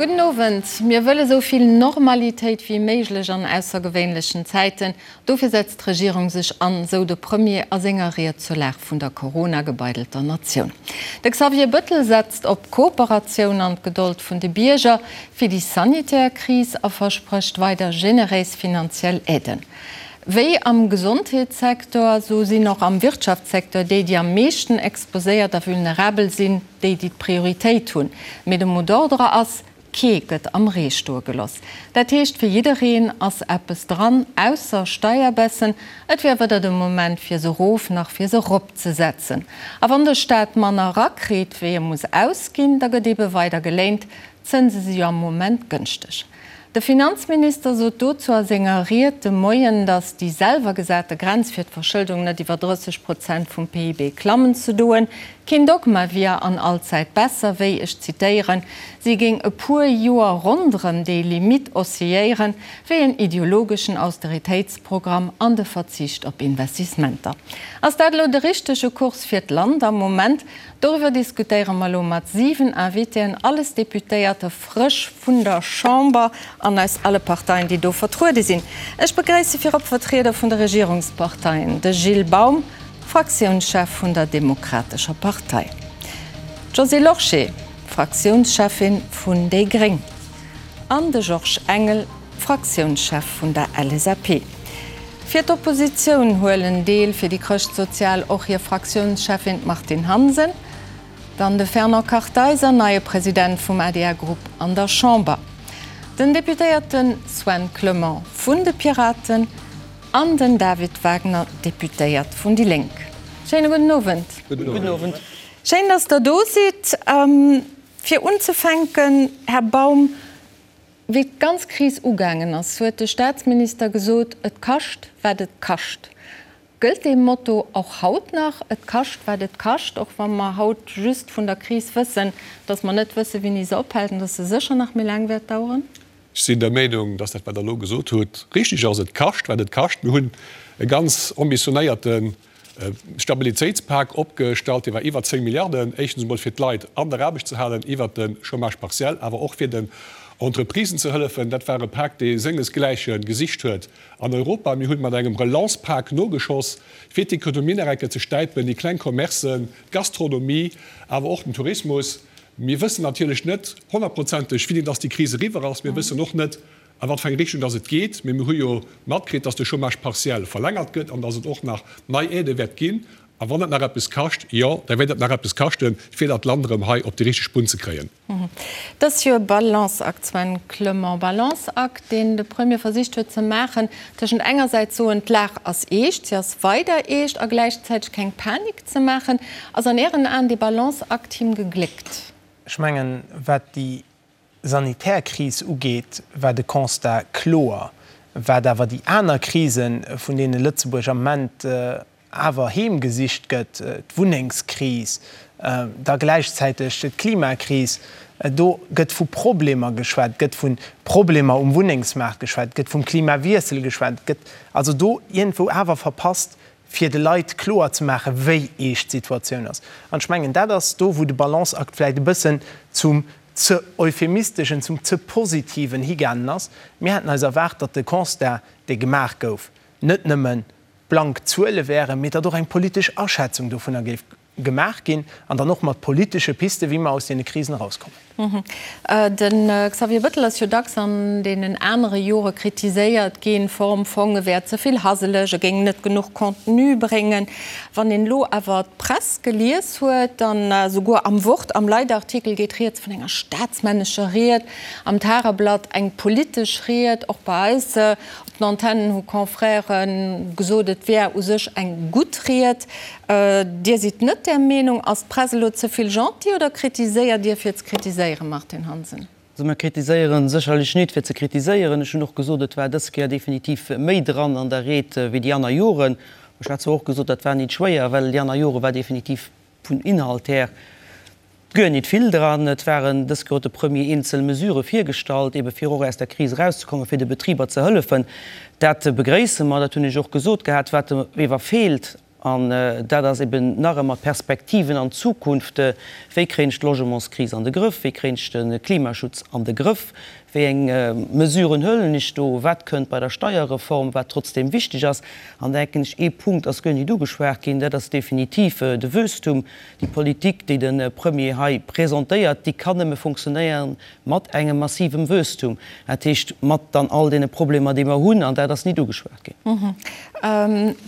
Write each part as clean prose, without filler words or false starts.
Gudden Owend. Mir wëlle sou vill Normalitéit wéi méiglech an aussergewéinlechen Zäiten. Dofir setzt d'Regierung sech an, sou de Premier a senger Ried zur Lag vun der Corona-gebeidelter Natioun. De Xavier Bëttel setzt op Kooperatioun an d'Gedold vun de Bierger fir déi sanitär Kris a versprécht weider generéis finanziell Aiden. Wéi am Gesondheetssecteur, sou sinn och am Wirtschaftssecteur déi, déi am meeschten exposéiert a vulnerabel sinn, déi, déi d'Prioritéit hunn. Mee de Mot d'ordre ass, Kee gëtt am Ree stoe geloss. Dat heescht, fir jiddereen ass eppes dran, ausser Steierbaissen. Et wier weder de Moment fir se erof nach fir se eropzesetzen. A wann de Staat manner erakritt, wéi e muss ausginn, da gëtt eebe weider geléint. D'Zënse si jo am Moment gënschteg. De Finanzminister sot dozou a senger Ried de Moien, datt déi selwer gesate Grenz fir d'Verschëldung net iwwer 30 Prozent vum PIB klammen ze doen, keen Dogma wier an allzäit besser wéi, ech zitéieren, si géing e puer Joer ronderëm déi Limitt oscilléieren, wéi en ideologeschen Austeritéitsprogramm an de Verzicht op Investissementer. Ass dat elo de richtege Kurs fir d'Land am Moment? Doriwwer diskutéiere mer elo mat 7 Invitéen, alles Deputéierte frësch vun der Chamber an aus alle Parteien, déi do vertruede sinn. Ech begréisse virop Vertrieder vun de Regierungsparteien, de Gilles Baum, Fraktiounschef vun der Demokratescher Partei, d'Josée Lorsché, Fraktiounscheffin vun déi gréng, an de Georges Engel, Fraktiounschef vun der LSAP. Fir d'Oppositioun huelen deel fir déi Chrëschtsozial och hir Fraktiounscheffin d'Martine Hansen, dann de Fernand Kartheiser, neie President vum ADR-Grupp an der Chamber, den Deputéierte Sven Clement vun de Piraten an den David Wagner, Deputéiert vun déi Lénk. Schéine gudden Owend. Gudden Owend. Schéin, datt Der do sidd. Fir unzefänken, Här Baum, Wéi d'ganz Kris ugaangen ass, huet de Staatsminister gesot, Et kascht, wat et kascht. Gëllt dee Motto och haut nach, Et kascht, wat et kascht, och wa mer haut just vun der Kris wëssen, datt mer net wëssen, wéini se ophält an datt se sécher nach méi laang wäert daueren? Ech sinn der Meenung, datt dat, wat Der elo gesot hutt, richtig ass. Et kascht, wat et kascht. Mir hunn e ganz ambitionéierte Stabilitéitspak opgestallt, dee war iwwer 10 Milliarden, éischtens emol fir d'Leit an der Aarbecht ze halen iwwert de Chômage partiel, awer och fir den Entreprisen ze hëllefen. Dat war e Pak, dee sengesgläiche gesicht huet an Europa. Mir hunn mat engem Relancepak nogeschoss, fir d'Ekonomie nach eng Kéier ze stäipen, déi kleng Commercen, d'Gastronomie, awer och den Tourismus. Mir wëssen natierlech net honnertprozenteg, wéini dass déi Kris eriwwer ass. Mir wëssen och net, A wat fir eng Richtung dass et geet. Mee mir hu jo matkritt, dass de Chômage partiel verlängert gëtt an dass et och nach nei Aidë wäert ginn. A wann et nach eppes kascht, jo, da wäert et nach eppes kaschten, fir dat Land erëm hei op déi richteg Bunn ze kréien. Et ass jo e Balanceakt, Sven Clement, Balanceakt, deen de Premier versicht huet ze maachen tëschent engersäits soen, d'Lag ass eescht, si ass weider eescht, a gläichzäiteg keng Panik ze maachen. Ass an Ären Aen dee Balanceakt him gegléckt? Ech mengen, wat déi sanitär Kris ugeet, war de Constat kloer. Wat awer déi aner Krisen, vun deene Lëtzebuerg am Ament awer heemgesicht gëtt, d'Wunnengskris, da gläichzäiteg d'Klimakris, do gëtt vu Problemer geschwat, et gëtt vu Problemer um Wunnengsmaart geschwat, et gëtt vum Klimawiessel geschwat, et gëtt also do iergendwou awer verpasst, fir de Leit kloer ze maachen, wéi eescht d'Situatioun ass. An ech mengen, dat ass do, wou de Balanceakt vläicht e bëssen zum ze euphemisteschen, zum ze positiven higaangen ass. Mir haten eis erwaart, datt de Constat, dee gemaach gouf, net nëmme blank Zuele wären, mee datt och eng politesch Aschätzung dovunner géif gemaach ginn an dann och mat politesche Pisten, wéi mer aus deene Krisen erauskommen. De Xavier Bettel ass jo dacks an deenen anere Jore kritiséiert ginn, Form, Fong, e wär ze vill haseleg, e géing net genuch Contenu bréngen. Wann een elo awer d'Press gelies huet, dann esouguer am Wort, am Leitartikel geet rieds vun enger staatsmännescher Ried, am Tageblatt eng politesch Ried, och bei eis op den Antennen hu Confrèrë gesot, et wär u sech eng gutt Ried. Dir sidd net där Meenung. Ass d'Press elo ze vill gentil oder kritiséiert Dir fir ze kritiséieren, Martine Hansen? Also mir kritiséieren sécherlech nit fir ze kritiséieren. Ech hunn och gesot, et war dës Kéier definitiv méi dran an der Ried wéi déi aner Joren. Ech hat zwar och gesot, dat war nit schwéier, well déi aner Jore war definitiv vun Inhalt här guer nit vill dran. Et waren dës Kéier huet de Premier eenzel Mesurë virgestallt, ebe fir och aus der Kris erauszekommen, fir de Betriber ze hëllefen. Dat begréisse mer, dat hunn ech och gesot gehat. Wat ewer feelt. An dat ass eben nach ëmmer d'Perspektiven an d'Zukunft, Wéi kréien ech d'Logementskris an de Grëff? Wéi kréien ech de Klimaschutz an de Grëff? Wéi eng Mesuren huelen ech do? Wat kënnt bei der Steierreform, wat trotzdeem wichteg ass? An denken ech, ee Punkt ass guer nit ugeschwat ginn, dat ass definitiv de Wuesstum. Déi Politik, déi de Premier hei presentéiert, déi kann nëmme funktionéieren mat engem massivem Wuesstum, dat heescht mat dann all deene Problemer, déi mer hunn. An dat ass nit ugeschwat ginn.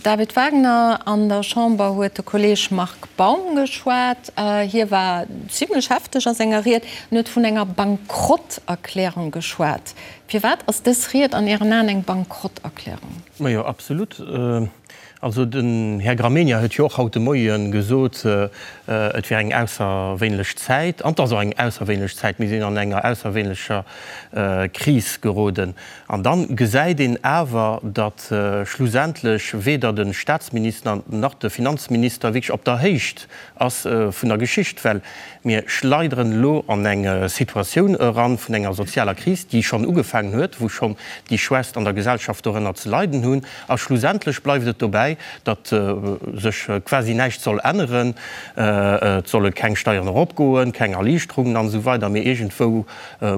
David Wagner, An der Chamber huet de Kolleeg Marc Baum geschwat. Hie war zimlech hefteg a senger Ried. En huet vun enger Bankrotterklärung geschwat. Firwat ass dës Ried an Ären Aen eng Bankrotterklärung? Majo, absolut. Also den Här Gramegna huet jo och haut de Moie gesot, et wär eng ausserwéinlech Zäit. An et ass och eng ausserwéinlech Zäit. Mir sinn an enger ausserwéinlecher Kris geroden. An da gesäit een awer, datt schlussendlech weder de Statsminister nach de Finanzminister wierklech op der Héicht ass vun der Geschicht, well mir schleideren elo an eng Situatioun eran vun enger sozialer Kris, déi schonn ugefaangen huet, wou schonn déi Schwächst an der Gesellschaft dorënner ze leiden hunn. A schlussendlech bleift et dobäi, datt sech quasi näischt soll änneren. Et solle keng Steieren eropgoen, keng Erliichterungen an esou weider, mee iergendwou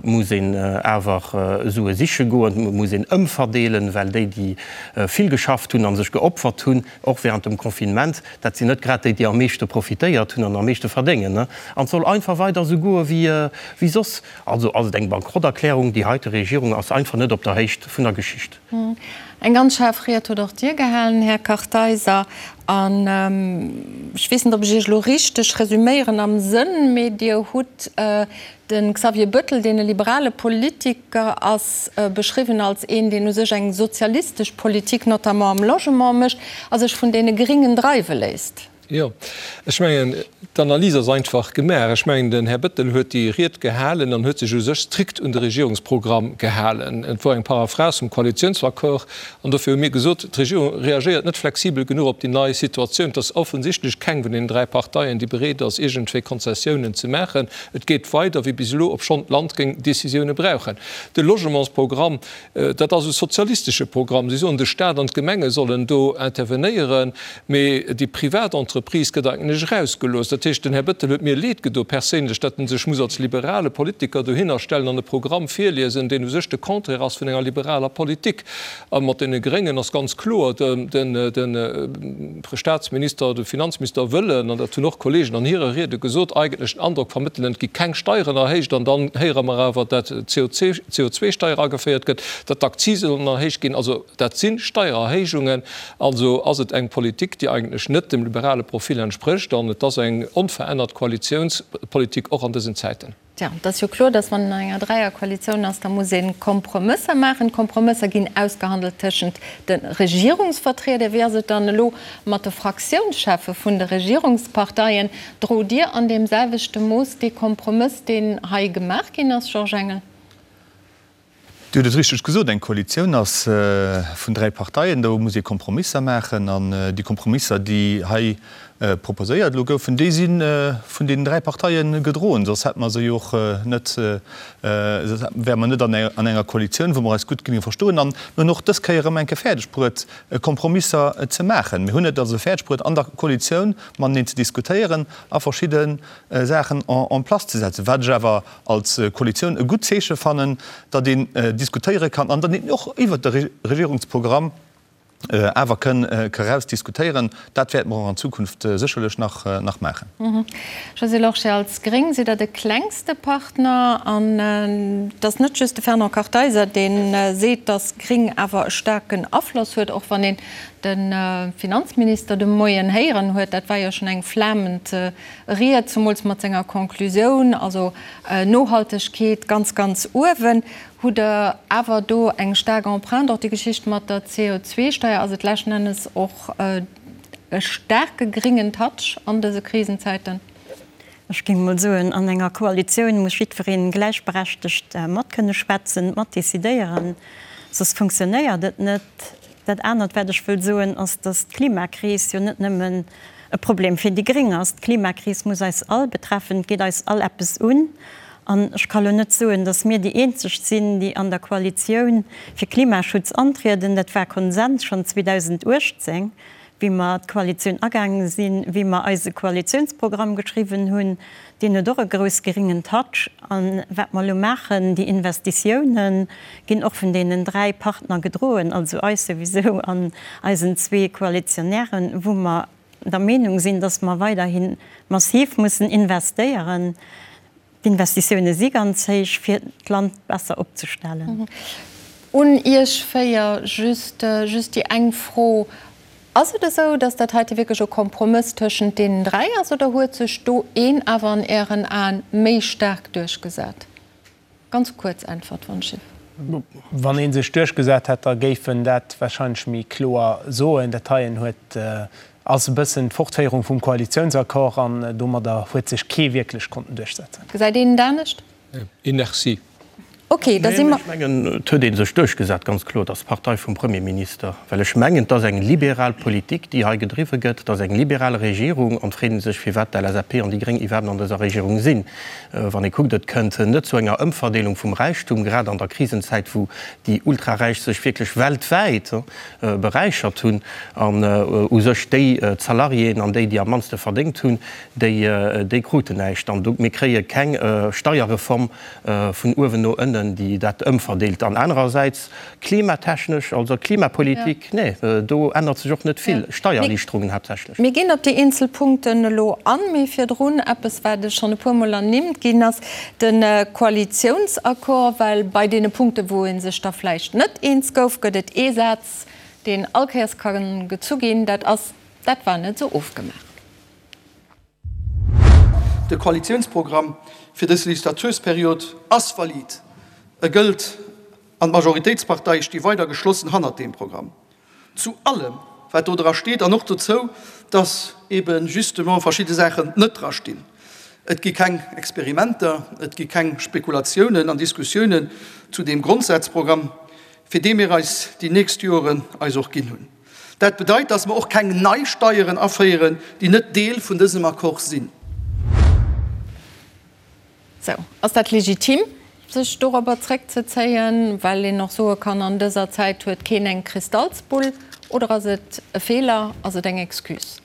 muss een awer Sue siche goen, et muss een ëmverdeelen, well déi, déi vill geschafft hunn a sech geopfert hunn, och während dem Confinement, dat sinn net grad déi, déi am meeschte profitéiert hunn an am meeschte verdéngen. An et soll einfach weider esou goe wéi soss. Also ass et eng Bankrotterklärung. Déi heite Regierung ass einfach net op der Héicht vun der Geschicht. Eng ganz schaarf Ried hutt och Dir gehalen, Här Kartheiser. An ech weess net, ob ech Iech elo richteg resüméieren am Sënn, mee Dir hutt de Xavier Bettel, deen e liberale Politiker ass, beschriwwen als een, deen u sech eng sozialistesch Politik, notamment am Logement, mécht a sech vun deene Gringen dreiwe léisst. Jo, ech mengen, d'Analys ass einfach gemaach. Ech mengen, den Här Bettel huet déi Ried gehalen an huet sech u sech strikt un de Regierungsprogramm gehalen. Et wor eng Paraphrase vum Koalitionsaccord an dofir hu mir gesot, d'Regierung reagéiert net flexibel genuch op déi nei Situatioun. Et ass offensichtlech keng vun deenen 3 Parteien, déi bereet ass, iergendwéi Konzessiounen ze maachen. Et geet weider wéi bis elo, obschonn d'Land géing Décisioune brauchen. De Logementsprogramm, Dat ass e sozialistesche Programm. Si soen, de Staat an d'Gemenge sollen do intervenéieren, mee déi privat Entreprise gëtt eigentlech erausgelooss. Dat heescht, den Här Bettel huet mir leed gedo perséinlech, datt en sech muss als liberale Politiker dohinner stellen an e Programm virliesen, deen u sech de Contraire ass vun enger liberaler Politik. A mat deene Gréngen ass ganz kloer, de Staatsminister, de Finanzminister wëllen, an dat hunn och Kollegen an hire Riede gesot, eigentlech den Androck vermëttelen, et gi keng Steieren erhéicht. An dann héiere mer awer, dat d'CO2-Steier ageféiert gëtt, datt d'Akzise sollen erhéicht ginn. Also dat si Steiererhéijungen. Also ass et eng Politik, déi eigentlech net dem liberale Profil entsprécht. An et ass eng onverännert Koalitiounspolitik och an dësen Zäiten. Tja, et ass jo kloer, datt wann een an enger Dräierkoalitioun ass, da muss ee Kompromësser maachen. D'Kompromësser ginn ausgehandelt tëschent de Regierungsvertrieder. Wéi ass et dann elo mat de Fraktiounscheffe vun de Regierungsparteien? Drot Dir an deem selwechte Mooss dee Kompromëss, deen hei gemaach ginn ass, Georges Engel? Dir hutt et richteg gesot, eng Koalitioun ass vun 3 Parteien, do muss ee Kompromisser maachen. An déi Kompromisser, déi hei proposéiert elo goufen, déi si vun deenen 3 Parteie gedroen, soss hätte mer se jo och net, soss wäre mer net an enger Koalitioun, wou mer eis gutt géinge verstoen. An mir hunn och dës Kéier erëm eng Kéier fäerdeg bruet, Kompromisser ze maachen. Mir hunn et also fäerdeg bruet, an der Koalitioun mateneen ze diskutéieren a verschidde Saachen en place ze setzen. Wat ech awer als Koalitioun e gutt Zeeche fannen, datt een diskutéiere kann an datt een och iwwert de Regierungsprogramm awer kënn eraus diskutéieren. Dat wäerte mer och an Zukunft sécherlech nach nach maachen. Josée Lorsché, Als Gréng sidd Der de klengste Partner an et ass net just de Fernand Kartheiser, dee seet, datt Gréng awer e staarken Afloss huet, och wann een de Finanzminister de Moien héieren huet. Dat war jo schonn eng flamend Ried, zemools mat senger Conclusioun, also Nohaltegkeet ganz, ganz uewen. Hutt Der awer do eng staark Empreinte? Och déi Geschicht mat der CO2-Steier, ass et leschten Ennes och e staarke gréngen Touch an dëse Krisenzäiten? Ech géing mol soen, an enger Koalitioun muss jiddweree gläichberechtegt mat kënne schwätzen, mat decidéieren, soss funktionéiert et net. Dat anert, wat ech wëll soen, ass, datt d'Klimakris jo net nëmmen e Problem fir déi Gréng ass. D'Klimakris muss eis all betreffen, et geet eis all eppes un. An ech ka lo net soen, datt mir déi eenzeg sinn, déi an der Koalitioun fir Klimaschutz antrieden. Dat war Konsens schonn 2018. Wéi mer d'Koalitioun agaange sinn, wéi mer eise Koalitiounsprogramm geschriwwen hunn, deen huet och e grouss geringen Touch. A wat mer elo maachen, déi Investitiounen ginn och vun deenen 3 Partner gedroen, also eis souwisou an eisen zwee Koalitionären, wou mer der Meenung sinn, dass mer weiderhi massiv mussen investéieren. D'Investitioune si ganz héich, fir d'Land besser opzestellen. Un Iech 4 just just déi eng Fro, Ass et esou, datt dat heite wierklech e Kompromëss tëschent deenen 3 ass oder huet sech do een awer an Ären Aen méi staark duerchgesat? Ganz kuerz Äntwert, wann ech. Wann ee sech duerchgesat hätt, da géif en dat wahrscheinlech méi kloer soen. Dat heien huet, ass e bëssen d'Fortféierung vum Koalitiounsaccord an domadder huet sech kee wierklech konnten duerchsetzen. Gesäit een et anescht? Inertie. Ok, da si mer. Ech mengen, et huet ee sech duerchgesat, ganz kloer, dass d'Partei vum Premierminister, well ech mengen, et ass eng liberal Politik, déi hei gedriwwe gëtt, et ass eng liberal Regierung, an et freet ee sech, firwat d'LSAP an déi Gréng iwwerhaapt an dëser Regierung sinn. Wann ee kuckt, et kënnt net zu enger Ëmverdeelung vum Räichtum, grad an der Krisenzäit, wou déi Ultraräich sech wierklech weltwäit beräichert hunn an u sech déi d'Salariéen an déi, déi am mannste verdéngt hunn, déi, déi kruten näischt. An do, mir kréie keng Steierreform vun uewen no ënnen, déi dat ëmverdeelt. An anerersäits klimatechnesch, also Klimapolitik, nee, do ännert sech och net vill, Steiererliichterungen haaptsächlech. Mir ginn op déi eenzel Punkten elo an, mee virdrun eppes, wat schonn e puermol ernimmt ginn ass, de Koalitiounsaccord. Well bei deene Punkten, wou ee sech da vläicht net eens gouf, gëtt et ee Saz, deen allkéiers ka gezu ginn, dat ass, Dat war net esou ofgemaach. De Koalitiounsprogramm fir dës Legislatursperiod ass valid, e gëllt an d'Majoritéitsparteie sti weider geschlossen hannert deem Programm. Zu allem, wat do dra steet an och dozou, dass ebe justement verschidde Saachen net dra stinn. Et gi keng Experimenter, et gi keng Spekulatiounen an Diskussiounen zu deem Grondsazprogramm, fir dee mir eis déi nächst Joren eis och ginn hunn. Dat bedeit, dass mer och keng nei Steieren aféieren, déi net Deel vun dësem Accord sinn. Sou, ass dat legitim, sech dorobber zréckzezéien, well een och soe kann, an dëser Zäit huet keen eng Kristallsbull, oder ass et e Feeler, ass et eng Excuse?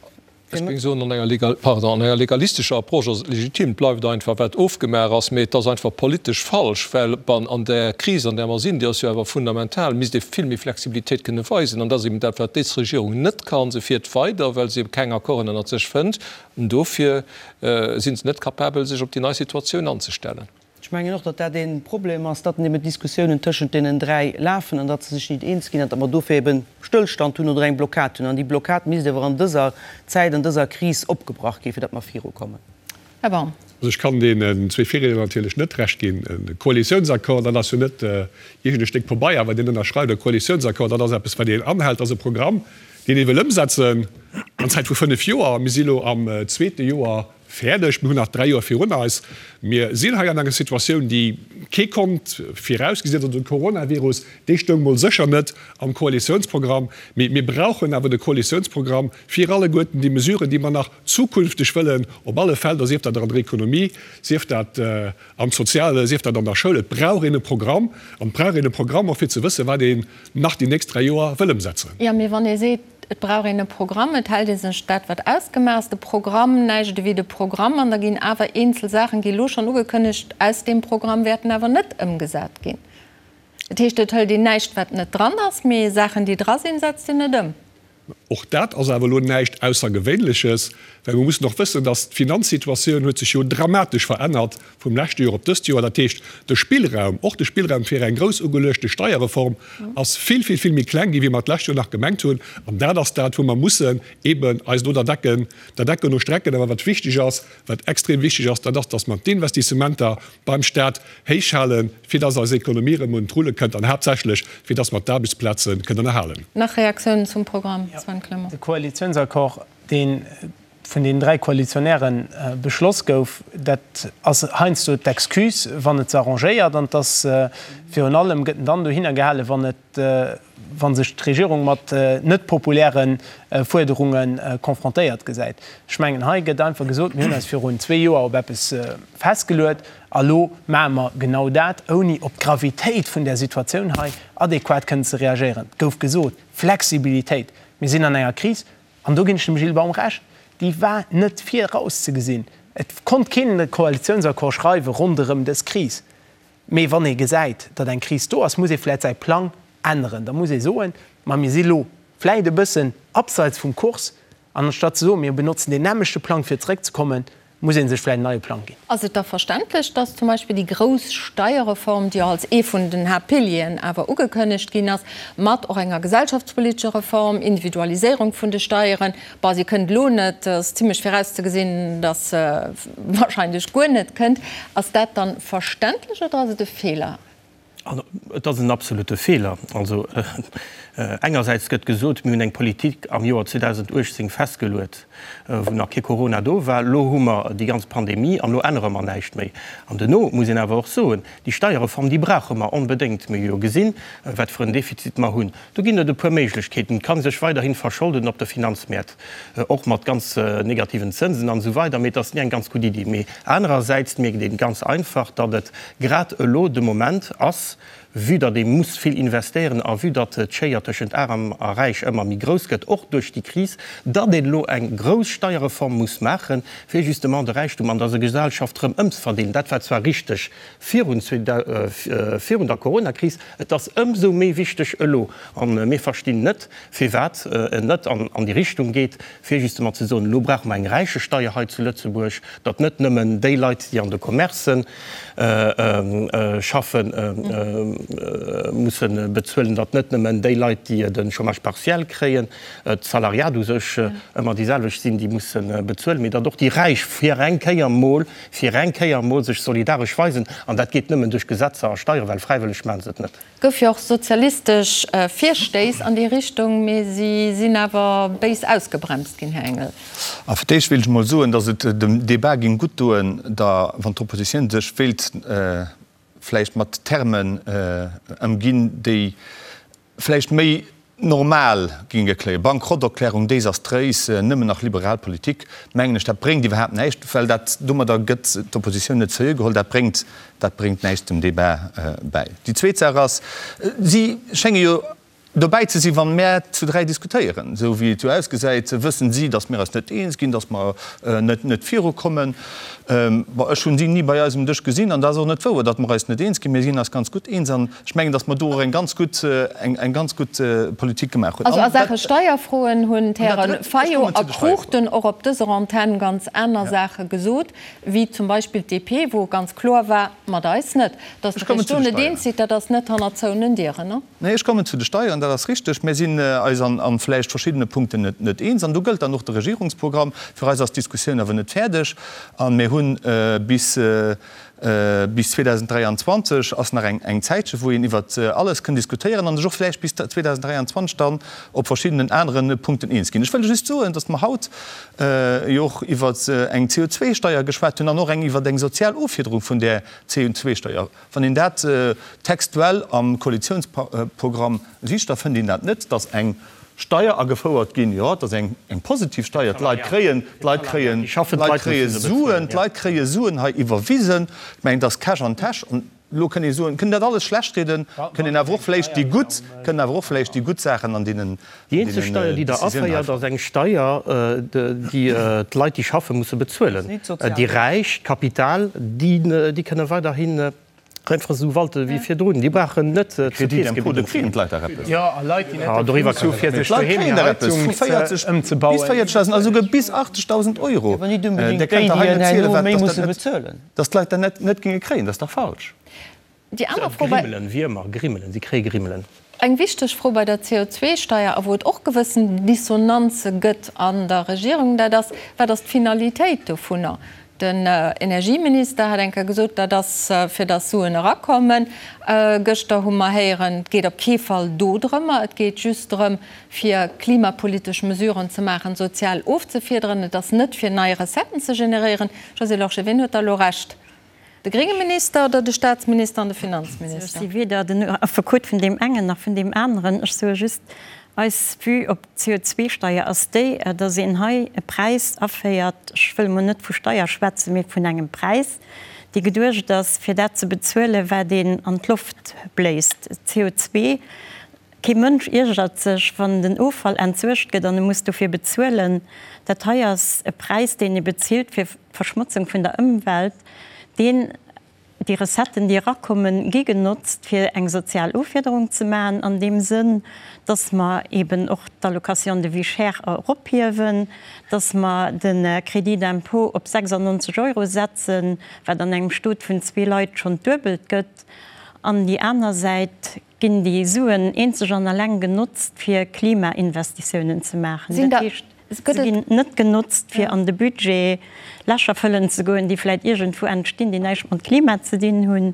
Ech géing soen, an enger legal, pardon, an enger legalistescher Approche ass et legitim. Et bleift einfach, wat ofgemaach ass. Mee et ass einfach politesch falsch, well ban an där Kris, an där mer sinn, déi ass jo awer fundamental, misst ee vill méi Flexibilitéit kënne weisen. An dat ass eben dat, wat dës Regierung net kann. Se fiert weider, well se keng Accorden ënnert sech fënnt. An dofir si se net capabel, sech op déi nei Situatioun anzestellen. Ech mengen och, datt dat ee Problem ass, datt eben d'Diskussiounen tëschent deenen 3 lafen an datt se sech nit eens ginn an datt mer dofir eben Stëllstand hunn oder eng Blockad hunn. An déi Blockad misst awer an dëser Zäit, an dëser Kris opgebrach ginn, fir datt mer virukommen. Här Baum. Also ech kann deenen zwee Virriedner natierlech net Recht ginn. E Koalitiounsaccord, dat ass jo net iergend e Stéck Pabeier, wat een ënnerschreift. E Koalitiounsaccord, dat ass eppes, wat een anhält. Dat ass e Programm, deen ee wëll ëmsetzen an Zäit vu fënnef Joer. Mir si elo am zweete Joer Fäerdeg. Mir hunn nach 3 Joer virun eis. Mir sinn hei an enger Situatioun, déi kee konnt virausgesinn. Also de Coronavirus, dee stoung mol sécher net am Koalitiounsprogramm. Mee mir brauchen awer de Koalitiounsprogramm fir alleguerten déi Mesuren, déi mer nach zukünfteg wëllen op alle Felder, sief dat an der Ekonomie, sief dat am Soziale, sief dat an der Schoul. Et brauch een e Programm an et brauch een e Programm och fir ze wëssen, wat een nach déi nächst 3 Joer wëll ëmsetzen. Jo, mee wann ee seet, Et brauch een e Programm, et hält ee sech dat, wat ausgemaach ass, de Programm, näischt ewéi de Programm, an da ginn awer eenzel Saachen, gi elo schonn ugekënnegt, aus deem Programm wäerten awer net ëmgesat ginn. Dat heescht, et hëlt een näischt, wat net dran ass, mee Saachen, déi dra sinn, setzt een net ëm. Och dat ass awer elo näischt Aussergewéinleches, well mir mussen och wëssen, dass d'Finanzsituatioun huet sech jo dramatesch verännert vum leschte Joer op dëst Joer. Dat heescht, de Spillraum, och de Spillraum fir eng grouss ugeluechte Steierreform ass vill, vill, vill méi kleng ginn, wéi mer d'lescht Joer nach gemengt hunn. An dat ass dat, wou mer mussen eeben eis elo der Decken, der Decken no strecken. Awer wat wichteg ass, wat extrem wichteg ass, dat ass, dass mer d'Investissementer beim Stat héich halen, fir dass eis Ekonomie erëm un d'Rulle kënnt an haaptsächlech, fir dass mer d'Aarbechtsplaze kënnen erhalen. Nach Reaktiounen zum Programm, Sven Clement? De Koalitiounsaccord, dee vun deenen 3 Koalitionäre beschloss gouf, dat ass heiansdo d'Excuse, wann et se arrangéiert. An et ass virun allem, gëtt en dann dohinner gehalen, wann et, wa sech d'Regierung mat net populäre Fuerderunge confrontéiert gesäit. Ech mengen, hei gëtt einfach gesot, mir hunn eis virun zwee Joer op eppes festgeluet a lo maache mer genau dat, ouni op d'Gravitéit vun där Situatioun hei adequat kënnen ze reagéieren. Et gouf gesot, Flexibilitéit, mir sinn an enger Kris. an do ginn ech dem Gilles Baum Recht, déi war net virauszegesinn. Et konnt keen e Koalitiounsaccord schreiwe ronderëm dës Kris. Mee wann ee gesäit, datt eng Kris do ass, muss ee vläicht säi Plang änneren. Da muss ee soen, ma mir si lo vläicht e bëssen abseits vum Kurs, an anstatt ze soen, mir benotzen deen nämmlechte Plang fir zeréckzekommen, muss ee sech vläicht en neie Plang ginn. Ass et da verständlech, datt zum Beispill déi grouss Steierreform, déi jo als ee vun den Haaptpilieren awer ugekënnegt ginn ass, mat och enger gesellschaftspolitescher Reform, Individualiséierung vun de Steieren, bon, si kënnt elo net, ass zimlech virauszegesinn, datt se wahrscheinlech guer net kënnt, ass dat dann verständlech oder ass et e Feeler? Et ass en absolute Feeler. Also engersäits gëtt gesot, mir hunn eng Politik am Joer 2018 festgeluet, wou nach kee Corona do war. Elo hu mer déi ganz Pandemie an elo ännere mer näischt méi. An duerno muss een awer och soen, déi Steierreform, déi brauche mer onbedéngt. Mir hu jo gesinn, wat fir en Defizit mer hunn. Do ginn et e puer Méiglechkeeten. Et kann sech weiderhi verscholden op de Finanzmäert, och mat ganz negativen Zënsen an esou weider, mee et ass ni eng ganz gutt Iddi. Mee anerersäits mierkt een ganz einfach, datt et grad elo de Moment ass, vue datt ee muss vill investéieren a vue datt d'Schéier tëschent Aarm a Räich ëmmer méi grouss gëtt, och duerch déi Kris, datt een elo eng grouss Steierreform muss maachen, fir justement de Räichtum an der Gesellschaft erëm ëmzeverdeelen. Dat war zwar richteg virun der Coronakris, Et ass ëmsou méi wichteg elo, a mir verstinn net, firwat en net an déi Richtung geet, fir justement ze soen, elo brauche mer eng Räichesteier hei zu Lëtzebuerg, datt net nëmmen déi Leit, déi an de Commercen schaffen, musse bezuelen, datt net nëmmen déi Leit, déi de Chômage partiel kréien, d'Salariat u sech ëmmer déi selwecht sinn, déi musse bezuelen, mee datt och déi Räich fir eng Kéier mol fir eng Kéier emol sech solidaresch weisen, an dat geet nëmmen duerch Gesetzer a Steieren, well fräiwëlleg maache se et net. Gouf jo och sozialistesch Virstéiss an déi Richtung, mee si sinn awer béis ausgebremst ginn, Här Engel. A fir d'éischt wéilt ech emol soen, datt et dem Débat géing gutt doen, da wann d'Oppositioun sech wéilt vläicht mat Termen ëmginn, déi vläicht méi normal géinge kléien. Bankrotterklärung, desastréis, nëmmen nach liberal Politik, mengen ech, dat bréngt iwwerhaapt näischt, well dat domadder gëtt d'Oppositioun net seriö geholl, dat bréngt, dat bréngt näischt dem Débat bäi. Déi zweet Saach ass, si schénge jo dobäi ze sinn, wa mär zu 3 diskutéieren. Esou wéi et jo ausgesäit, wëssen si, datt mir eis net eens ginn, datt mer net, net virukommen. Bon, ech hunn si ni bei eis um Dësch gesinn an dat ass och net wouer, datt mer eis net eens ginn. Mir sinn eis ganz gutt eens an Ech mengen, datt mer do och eng ganz gutt, eng ganz gutt Politik gemaach hunn. Also a Saache Steierfroen hunn d'Häre Fayot a Cruchten och op dëser Antenn ganz aner Saache gesot, wéi zum Beispill d'DP, wou ganz kloer war, mat eis net. Datt Der Iech do net eens sidd, dat ass net hannert zouenen Dieren, ne? Nee, ech kommen zu de Steieren, dat ass richteg. Mir sinn eis an vläicht verschiddene Punkten net eens. An do gëllt dann och de Regierungsprogramm. Fir eis ass d'Diskussioun awer net fäerdeg. A mir hunn bis Bis 2023 ass nach eng Zäitche wou een iwwert alles kënn diskutéieren an sech och vläicht bis 2023 dann op verschiddenen anere Punkten eens ginn. Ech wëll just soen, datt mer haut jo och iwwert eng CO2-Steier geschwat hunn an och eng iwwert eng sozial Offiederung vun där CO2-Steier. Wann een dat textuell am Koalitionsprogramm sicht, da fënnt een dat net, datt eng Steier agefouert ginn, jo, et ass eng positiv Steier, d'Leit kréien, d'Leit kréien, d'Leit kréie Suen, d'Leit kréie Suen hei iwwerwisen. Ech mengen, et ass Cash an Täsch. An elo kënn ee soen, kënn dat alles schlechtrieden, kënn een awer och vläicht déi gutt, kënnen awer och vläicht déi gutt Saachen an deenen, Déi eenzeg Steier, déi Der aféiert, ass eng Steier, déi d'Leit, déi schaffen, musse bezuelen. Déi Räich, d'Kapital, déi kënne weiderhin Einfach esou walte wéi virdrun. Déi brauchen net zur Keess gebidden ze ginn. Jo, a Leit, déi net de Luxus hu fir sech doheem hir Heizung ëmzebauen. Bis 40.000, esouguer bis 80.000 Euro. Awer net onbedéngt déi, déi en herno méi musse bezuelen. Datt d'Leit dat net géinge kréien, dat ass dach falsch. Déi aner Fro bei. Grimmelen, Wiermer, Grimmelen, si kréie Grimmelen. Eng wichteg Fro bei der CO2-Steier, a wou et och gewëssen Dissonanze gëtt an der Regierung, dat ass, Wat ass d'Finalitéit dovunner? Den Energieminister hat eng Kéier gesot, dat ass fir datt Suen erakommen. Gëschter hu mer héieren, et geet op kee Fall do drëmmer, et geet just drëm, fir klimapolitesch Mesuren ze maachen, sozial ofzefiederen. Et ass net fir nei Recetten ze generéieren. Josée Lorsché, wien huet da elo Recht? De grénge Minister oder de Staatsminister an de Finanzminister? Ech si weder den Affekot vun deem engen nach vun deem aneren. Ech soe just, eis Vue op d'CO2-Steier ass déi, datt een hei e Präis aféiert, ech wëll emol net vu Steier schwätzen, mee vun engem Präis, dee geduecht ass, fir dat ze bezuelen, wat een an d'Loft bléist, CO2. Kee Mënsch iergert sech, wann den Offall entsuergt gëtt an e muss dofir bezuelen. Dat hei ass e Präis, deen ee bezilt fir d'Verschmotzung vun der Ëmwelt, deen, déi Recetten, déi erakommen, gi genotzt, fir eng sozial Offiederung ze maachen, an deem Sënn, dass mer eeben och d'Allocation de vie chère erophiewen, dass mer de Crédit d'impôt op 96 Euro setzen, wat an engem Stot vun zwee Leit schonn d'Duebelt gëtt. An déi aner Säit ginn déi Suen eenzeg an alleng genotzt, fir Klimainvestitiounen ze maachen. Dat heescht, se ginn net genotzt, fir an de Budget Lächer fëllen ze goen, déi vläicht iergendwou entstinn, déi näischt mat Klima ze dinn hunn,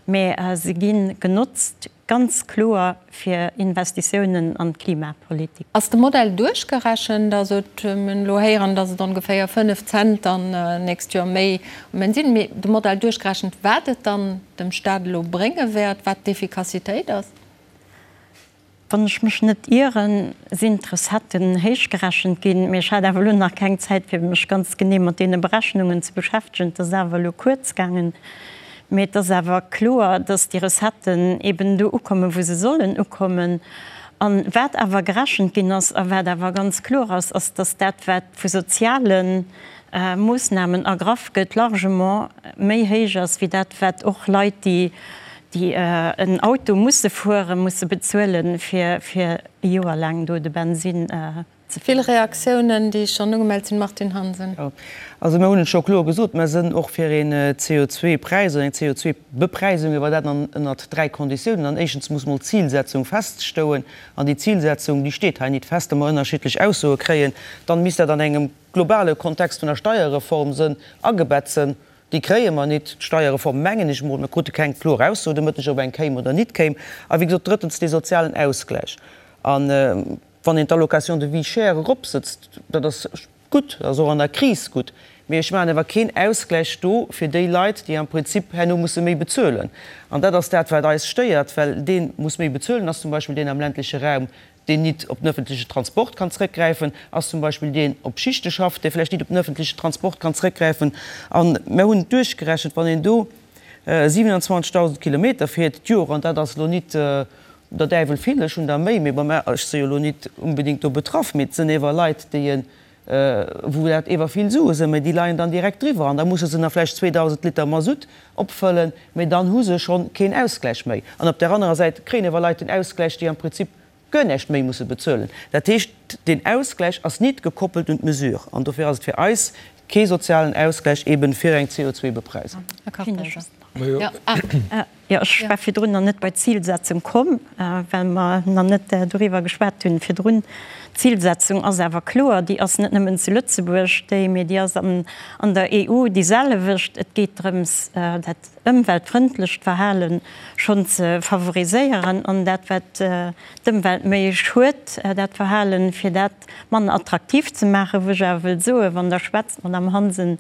mä se gi genotzt ganz kloer fir Investitiounen an d'Klimapolitik. Ass de Modell duerchgerechent? Also mir hunn elo héieren, datt et ongeféier 5 Cent dann nächst Joer méi um Enn sinn. Mee de Modell duerchgerechent, wat et dann dem Staat elo brénge wäert, wat d'Effikassitéit ass? Wann ech mech net ieren, sinn d'Recetten héichgerechent ginn, mee ech hat awer elo nach keng Zäit, fir mech ganz genee mat deene Berechnungen ze beschäftegen. Et ass awer elo kuerz gaangen. Mee et ass awer kloer, dass déi Recetten eben do ukommen, wou se sollen ukommen. A wat awer gerechent ginn ass a wat awer ganz kloer ass, ass, dass dat, wat vu soziale Moossnamen ergraff gëtt, largement méi héich ass wéi dat, wat och Leit, déi déi en Auto musse fueren, musse bezuelen, fir fir e Joer laang do de Bensinn ze Vill Reaktiounen, déi schonn ugemellt sinn. Martine Hansen. Jo, also mir hunn et scho kloer gesot, mer sënn och fir een CO2-Präis oder eng CO2-Bepräisung, awer dat an ënnert 3 Konditiounen. An éischtens muss mol d'Zilsetzung feststouen, an déi Zilsetzung, déi steet hei nit fest, da mer ënnerschiddlech Aussoe kréien. Dann misst dat an engem globale Kontext vun der Steierreform sënn agebett sënn. Déi kréie mer nit, d'Steierreform, mengen ech emol. Mir krute keng kloer Ausso de Mëtteg, ob eng kéim oder nit kéim. A wéi gesot, drëttens, dee sozialen Ausgläich. A wann een d'Allocation de vie chère eropsëtzt, dat ass gutt, dat ass och an der Kris gutt, mee ech maachen awer keen Ausgläich do fir déi Leit, déi am Prinzip herno musse méi bezuelen. An dat ass dat, wat eis stéiert, well dee muss méi bezuelen ass zum Beispill deen am ländleche Raum, deen nit op den öffentliche Transport kann zrëckgräifen, ass zum Beispill deen op Schichte schafft, dee vläicht nit op den öffentliche Transport kann zrëckgräifen. A mir hunn et duerchgerechent, wann een do 27.000 Kilometer fiert d'Joer, an dat ass elo nit der Däiwel vill, ech hunn der méi, mee bon, mä ech si jo elo nit unbedéngt do betraff, mee et sënn ewer Leit, déi e wou dat ewer vill Sue sënn, mee déi leien dann direkt driwwer an da musse se nach vläicht 2.000 Liter Masutt opfëllen, mee dann hu se schonn keen Ausgläich méi. An op där anerer Säit kréien ewer Leit den Ausgläich, déi am Prinzip guer näischt méi musse bezuelen. Dat heescht, deen Ausgläich ass nit gekoppelt un d'Mesure an dofir ass et fir eis kee sozialen Ausgläich eben fir eng CO2-Bepreisung. Jo, ech war virdrun nach net bei d'Zilsetzung komm, well mer nach net doriwwer geschwat hunn virdrun. D'Zilsetzung ass awer kloer, déi ass net nëmmen zu Lëtzebuerg déi, mee déi ass an der EU déi selwecht. Et geet drëms, dat ëmweltfrëndlecht Verhale schonn ze favoriséieren an dat, wat d'Ëmwelt méi schued, dat Verhalen, fir dat manner attraktiv ze maachen. Wou ech awer wëll soen, wann Der schwätzt, Madamm Hansen,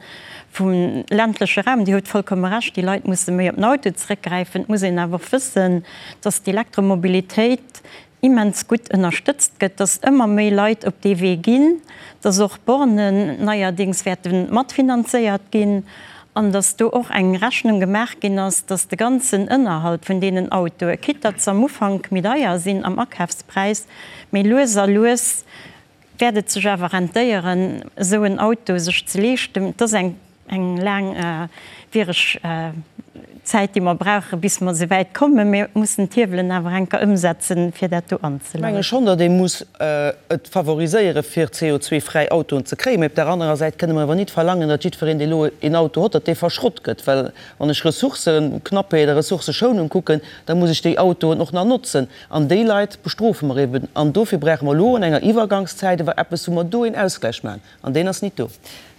vum ländleche Raum, Dir hutt vollkomme Recht, déi Leit musse méi op den Auto zeréckgräifen. Et muss een awer och wëssen, dass d'Elektromobilitéit immens gutt ënnerstëtzt gëtt, dass ëmmer méi Leit op dee Wee ginn, dass och Bornen neierdéngs wäerte matfinanzéiert ginn an dass do och eng Rechnung gemaach ginn ass, dass de ganzen Ënnerhalt vun deenen Autoe, quitte datt se am Ufank méi deier sinn am Akafspräis, mee lues a lues wäert et sech awer rentéieren, esou en Auto sech ze leeschten. Et ass eng eng laangwiereg Zäit, déi mer brauchen, bis mer esouwäit kommen. Mir mussen d'Hiewelen awer eng Kéier ëmsetzen, fir dat do anzeleien. Ech menge schonn, datt ee muss et favoriséieren, fir CO2-fräi Autoen ze kréien. Mee op där anerer Säit kënne mer awer nit verlangen, datt jiddwereen, dee elo een Auto hott, datt dee verschrott gëtt. Well wann ech Ressourcëknappheet a Ressourcëschounung kucken, da muss ech déi Autoen och nach notzen. An déi Leit bestrofe mer eben. An dofir brauche mer elo an enger Iwwergangszäit ewer eppes, wou mer do een Ausgläich maachen. An deen ass nit do.